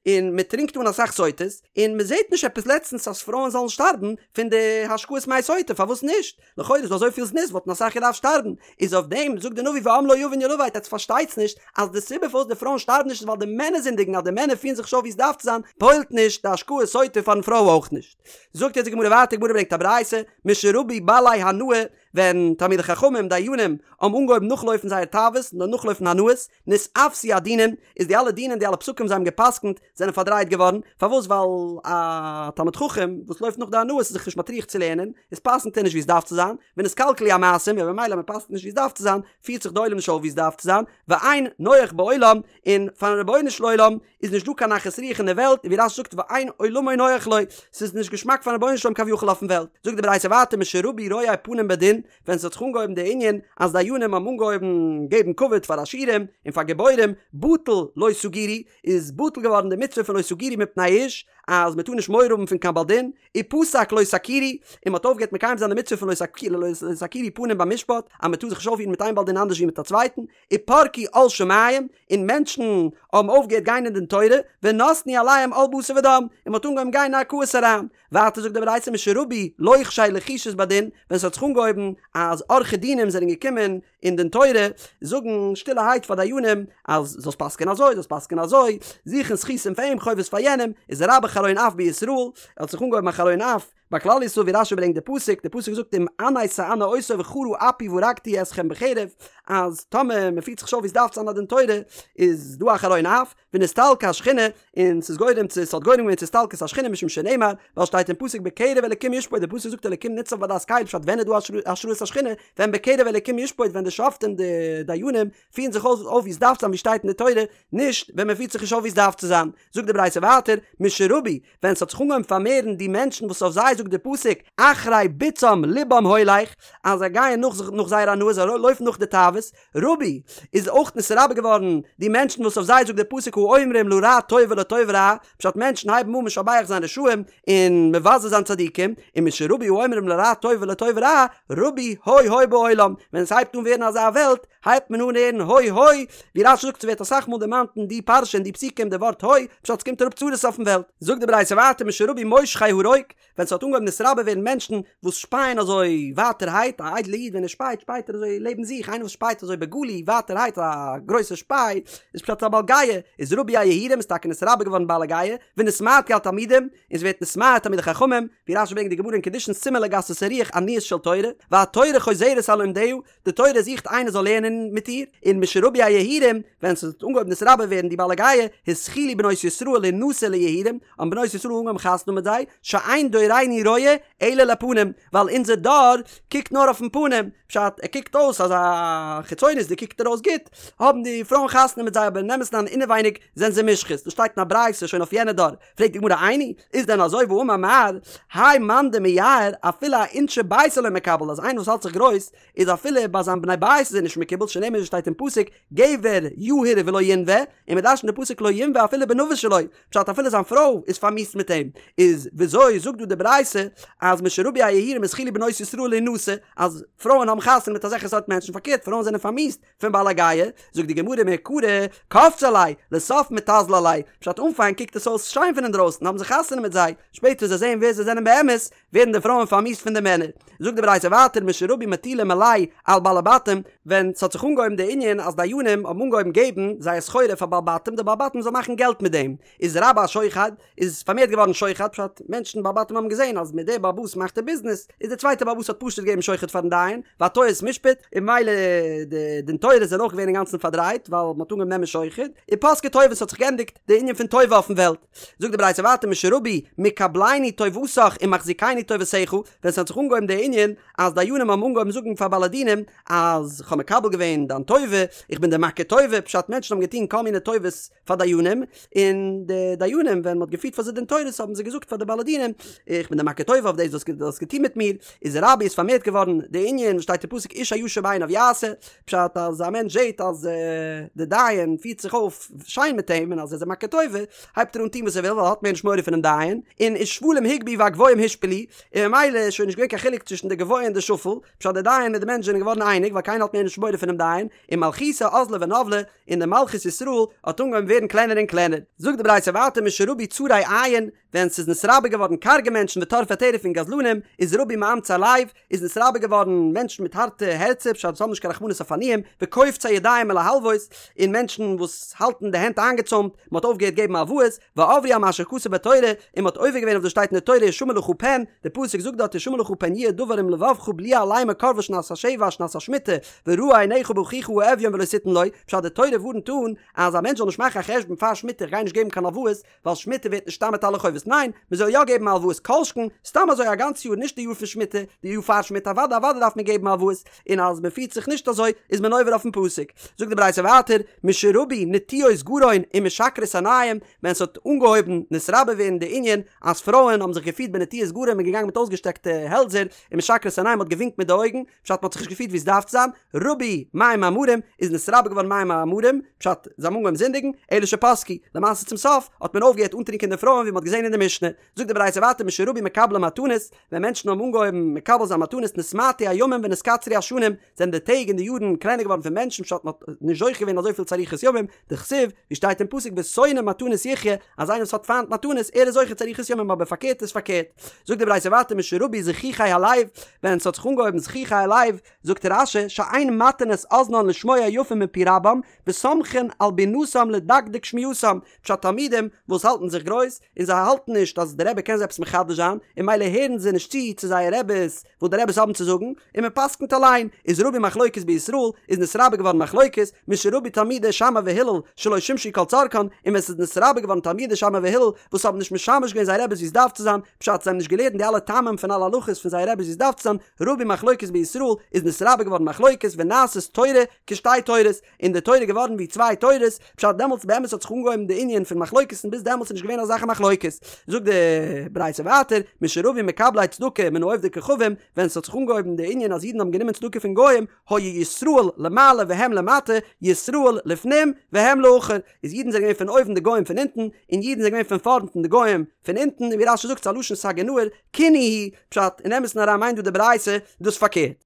און מען טרינקט אן אסאך סוטות, און מען זעט נישט עפעס לעצטנס אז פרויען זאלן שטארבן פון די השקאת מי סוטה, פארוואס נישט? לכאורה איז דא אזויפיל זנות וואלטן אסאך געדארפט שטארבן, איז אויף דעם זאגט די נביא ועם לא יבין ילבט עטס פארשטייטס נישט אז די סיבה פארוואס די פרויען שטארבן נישט איז ווייל די מענער זינדיגן אז די מענער פירן זיך נישט אויף ווי עס דארף צו זיין פועל'ט נישט די השקאת סוטה פארן פרוי אויך נישט. זאגט יעצט די גמרא ווייטער גמרא ברענגט א ברייתא משרבו בעלי הנאה ווען תלמידי חכמים דיינים האבן אנגעהויבן נאכלויפן זייער תאוות און נאכלויפן הנאות נתעוותו הדינים איז די אלע דינים די אלע פסקים זיי האבן געפסקנט זענען פארדרייט געווארן, פארוואס ווייל א תלמיד חכם וואס לויפט נאך די הנאות איז זיך נישט מטריח צו לערנען, איז פסק'נט ער נישט ווי עס דארף צו זיין, ונתקלקלו המעשים, און במילא מען פסק'נט נישט ווי עס דארף צו זיין, פירט זיך די עולם נישט אויף ווי עס דארף צו זיין, ואין נוח בעולם, און פארן רבונו של עולם איז נישט דא קיין נחת רוח אין די וועלט, און ווי רש"י זאגט ואין עולמו נוח לו, ס'איז נישט געשמאק פארן רבונו של עולם כביכול אויפן וועלט, זאגט די ברייתא ווייטער משרבו רואי פנים בדין, ווען ס'האט זיך אנגעהויבן די ענין אז דיינים האבן אנגעהויבן געבן כבוד פאר עשירים און פאר גיבורים, בטל לא תגורו, איז בטל געווארן די מצוה פון לא תגורו מפני איש, אז מ'טאר נישט מורא האבן פון קיין בעל דין, ופסק לא תכירו, און מ'האט אויפגעהערט מקיים זיין די מצוה פון לא תכירו פנים במשפט, אז מ'טאר זיך נישט אויפפירן מיט איין בעל דין אנדערש ווי מיט א צווייטן, ופרקו עול שמים, און מענטשן האבן אויפגעהערט גיין אין דין תורה, ונתנו עליהם עול בשר ודם, און מ'האט אנגעהויבן גיין אין ערכאות אריין. ווייטער זאגט די ברייתא משרבו לוחשי לחישות בדין, ווען ס'האט זיך אנגעהויבן אז עורכי דינים זענען געקומען אין דין תורה זאגן שטילערהייט פאר דיינים אז זאלסט פסק'ען אזוי זאלסט פסק'ען אזוי, זוכן זכותים פאר אים חובות פאר יענעם, איז רבה חרון אף בישראל, האט זיך אנגעהויבן א חרון אף ביי כלל ישראל ווי רש"י ברענגט די פסוק, די פסוק זאגט אם ענה תענה אותו וחרה אפי והרגתי אתכם בחרב, אז טאמער מ'פירט זיך נישט אויף ווי ס'דארף צו זיין א דין תורה איז דא א חרון אף, ונסתלקה השכינה, און ס'איז גורם צו, ס'האט גורם געווען צו הסתלקות השכינה משום שנאמר, ווייל שטייט אין פסוק בקרב אלקים ישפוט, די פסוק זאגט אלקים ניצב בעדת קל, פשט ווען איז דא השראת השכינה, ווען בקרב אלקים ישפוט, ווען די שופטים די דיינים פירן זיך אויף ווי עס דארף צו זיין ווי שטייט אין די תורה, נישט ווען מען פירט זיך נישט אויף ווי עס דארף צו זיין. זאגט די ברייתא ווייטער, משרבו, ווען ס'האט זיך אנגעהויבן פארמערן די מענטשן וואס אויף זיי זאגט די פסוק אחרי בצעם לבם הולך, אז זיי גייען נאך נאך זייער הנאה, זיי לויפן נאך די תאוות, רבו, איז אויך נתרבה געווארן די מענטשן וואס אויף זיי זאגט דער פסוק האומרים לרע טוב ולטוב רע, פשט מענטשן הייבן אן משבח זיין רשעים און מבזה זיין צדיקים, און משרבו האומרים לרע טוב ולטוב רע, רבו הוי הוי בעולם, ווען עס הייבט אן ווערן אזא וועלט, הייבט מען אן הערן הוי הוי, ווי רש"י זאגט ס'ווערט אסאך מאל דערמאנט אין די פרשה אין די פסוקים די ווארט הוי, פשט ס'קומט אראפ צרות אויפן וועלט. זאגט די ברייתא ווייטער משרבו מושכי הרוק, ווען ס'האט אנגעהויבן נתרבה ווערן מענטשן וואס שפייען אזוי ווייטערהייט, א איידלע איד ווען ער שפייט שפייט ער אזוי לעבן זיך, איינער וואס שפייט אזוי בגלוי ווייטערהייט א גרויסע שפיי, איז פשט א בעל גאוה, איז רבו היהירים איז טאקע נתרבה געווארן בעלי גאוה, ונתמעטו התלמידים, און ס'ווערט נתמעט תלמידי חכמים, ווי רש"י ברענגט די גמרא אין קידושין סימן לגסות הרוח עניות של תורה, והתורה חוזרת על לומדיה, די תורה זוכט איינער זאל לערנען מיט איר, און משרבו היהירים, ווען ס'האט אנגעהויבן נתרבה ווערן די בעלי גאוה, התחילו בנות ישראל להנשא ליהירים, האבן בנות ישראל אנגעהויבן חתונה האבן מיט זיי, שאין דורנו רואה אלא לפנים, ווייל אונזער דור קוקט נאר אויפן פנים, פשט, ער קוקט אויס אזא חיצונית'דיג קוקט ער אויס גוט, האבן די פרויען חתונה מיט זיי אבער אין אמת'ן אריין אינעווייניג זענען זיי מושחת, דאס שטייט אין א ברייתא שוין אויף יענע דור, פרעגט די גמרא איני, איז דען אזוי והאמר מר, האי מאן דמיהר אפילו אאינשי ביתיה לא מקבל אז איינער וואס האלט זיך גרויס איז אפילו ביי זיין בני בית איז ער נישט מקובל שנאמר ווי שטייט אין פסוק גבר יהיר ולא ינוה, און מען דרש'נט די פסוק לא ינוה אפילו בנוה שלו, פשט אפילו זיין פרוי איז פארמיאוסט מיט אים, איז וויאזוי זאגט דא די ברייתא אז משרבו היהירים התחילו בנות ישראל להנשא אז פרויען האבן חתונה מיט אזעלכע סארט מענטשן פארקערט פרויען זענען פארמיאוסט פון בעלי גאוה, זאגט די גמרא מעיקרא קפצי עליה, לסוף מיתזלי עליה, פשט אנפאנג קוקט עס אויס שיין פון אינדרויסן האבן זיי חתונה מיט זיי, שפעטער זיי זעען ווער זיי זענען באמת, ווערן די פרויען פארמיאוסט פון די מענער. זאגט די ברייתא ווייטער משרבו מטילי מלאי על בעלי בתים, ווען ס'האט זיך אנגעהויבן די ענין אז דיינים האבן אנגעהויבן געבן זייער סחורה פאר בעלי בתים די בעלי בתים זאלן מאכן געלט מיט דעם, איז רבה השוחד, איז פארמערט געווארן שוחד, פשט, מענטשן בעלי בתים האבן געזען אז מיט דער בעל הבית מאכט ער ביזנעס, איז דער צווייטער בעל הבית האט פשוט געגעבן שוחד פארן דיין, והטיית משפט, און ממילא די דין תורות זענען אויך געווען אינגאנצן פארדרייט, ווייל מ'האט אנגעהויבן נעמען שוחד, ופסקה טובה ס'האט זיך געענדיגט די ענין פון טובה אויפן וועלט. זאגט די ברייתא ווייטער משרבו מקבלני טובתך ומחזיקני טובתך, ווען ס'האט זיך אנגעהויבן די ענין אז דיינים האבן אנגעהויבן זאגן פאר בעלי דינים אז כ'האב מקבל געווען דיין טובה, איך בין דיר מכיר טובה, פשט מענטשן האבן געטון כל מיני טובות פאר דיינים, און די דיינים ווען מ'האט געפירט פאר זיי דין תורות האבן זיי געזאגט פאר די בעלי דינים, איך בין דיר מכיר טובה אויף דאס וואס דו האסט געטון מיט מיר, איז רבו איז פארמערט געווארן די ענין וואס שטייט. שטייט אין פסוק איש הישר בעיניו יעשה, פשט אז א מענטש זעט אז די דיין פירט זיך אויף שיין מיט אים און אז ער איז אים מכיר טובה, הייבט ער אן טון וואס ער וויל ווייל ער האט מער נישט מורא פונעם דיין, און ושפלים הוגבהו והגבוהים הושפלו, און ממילא איז שוין נישט געווען קיין חילוק צווישן די גבוה און די שפל, פשט די דיין מיט די מענטש זענען געווארן אייניג ווייל קיינער האט מער נישט מורא פונעם דיין, און מלכותא אזלא ונזלא, און די מלכות ישראל האט אנגעהויבן ווערן קלענער און קלענער. זאגט די ברייתא ווייטער משרבו צרי עין, ווען ס'איז נתרבה געווארן קארגע מענטשן וטורפי טרף און גזלנים, איז רבו מאמצי לב, איז נתרבה געווארן מענטשן מיט הארטע הערצער פשט וואס האבן נישט קיין רחמנות אויף עניים, וקופצי ידיים מלהלוות, און מענטשן וואס האלטן די הענט איינגעצוימט, מ'האט אויפגעהערט געבן הלוואות, ועברו על מה שכתוב בתורה, און מ'האט עובר געווען אויף וואס שטייט אין די תורה השמר לך פן, די פסוק זאגט דארט השמר לך פן יהיה דבר עם לבבך בליעל לאמר קרבה שנת השבע שנת השמיטה, ורעה עיניך באחיך האביון ולא תתן לו, פשט די תורה ווארנט אן אז א מענטש זאל נישט מאכן א חשבון פאר שמיטה איך גיי נישט געבן קיין הלוואות, ווייל שמיטה ווערט נשתמט אלע חובות, ניין, מען זאל יא געבן הלוואות כל שכן, סתם אזוי א גאנץ יאר נישט די יאר פון שמיטה, די יאר פאר שמיטה אוודאי אוודאי דארף מען געבן הלוואות, און אז מען פירט זיך נישט אזוי איז מען עובר אויפן פסוק. זאגט די ברייתא ווייטער, משרבו נטויות גרון ומשקרות עיניים, ווען ס'האט אנגעהויבן נתרבה ווערן די ענין אז פרויען האבן זיך געפירט בנטויות גרון און געגאנגען מיט אויסגעשטעקטע העלדזער, ומשקרות עיניים מ'האט געווינקט מיט די אויגן, פשט מ'האט זיך נישט געפירט ווי עס דארף צו זיין, רבו מים המרים, איז נתרבה געווארן מים המרים, פשט, זיי האבן אנגעהויבן זינדיגן, אלא שפסקו, למעשה צום סוף האט מען אויפגעהערט אנטרינקען די פרויען ווי מ'האט געזען אין די משנה. זאגט די ברייתא ווייטער משרבו מקבלי מתנות, ווען מענטשן האבן אנגעהויבן מקבל זיין מתנות נתמעטו הימים ונתקצרו השנים, זענען די טעג און די יארן קלענער געווארן פון מענטשן פשט מ'האט נישט זוכה געווען אזויפיל צו אריכות ימים, דכתיב, ווי שטייט אין פסוק ושונא מתנות יחיה, אז איינער וואס האט פיינט מתנות ער איז זוכה צו אריכות ימים אבער פארקערט איז פארקערט. זאגט די ברייתא ווייטער משרבו זחוחי הלב, ווען ס'האט זיך אנגעהויבן זחוחי הלב, זאגט רש"י שאין מטין את אזנן לשמוע יפה מפי רבם, וסומכין על בינתם לדקדק שמיעתם, פשט תלמידים וואס האלטן זיך גרויס, און זיי האלטן נישט אז די רבי קען זיי עפעס מחדש זיין, און ממילא הערן זיי נישט צו צו זייער רבי'ס וואס די רבי'ס האבן צו זאגן, און מען פסק'נט אליין, איז רבו מחלוקת בישראל, איז נתרבה געווארן מחלוקת, משרבו תלמידי שמאי והלל שלא שימשו כל צרכן, און ווען ס'איז נתרבה געווארן תלמידי שמאי והלל וואס האבן נישט משמש געווען זייער רבי'ס ווי עס דארף צו זיין, פשט זיי האבן נישט געלערנט די אלע טעמים פון אלע הלכות פון זייער רבי'ס ווי עס דארף צו זיין, רבו מחלוקת בישראל, איז נתרבה געווארן מחלוקת ונעשית תורה כשתי תורות, און די תורה איז געווארן ווי צוויי תורות, פשט דעמאלטס באמת האט זיך אנגעהויבן די ענין פון מחלוקת און ביז דעמאלטס איז נישט געווען אזאלכע מחלוקת. זאגט די ברייתא ווייטער, משרבו מקבלי צדקה מן העובדי כוכבים, ווען ס'האט זיך אנגעהויבן די ענין אז אידן האבן גענומען צדקה פון גוים, היו ישראל למעלה והם למטה, ישראל לפנים והם לאחור, איז אידן זענען געווען פון אויבן די גוים פון אונטן, און אידן זענען געווען פון פארנט און די גוים פון אונטן, און ווי רש"י זאגט ס'איז א לשון סגי נהור, כינוי הוא, פשט, אין אמת'ן אריין מיינט דא די ברייתא דאס פארקערט.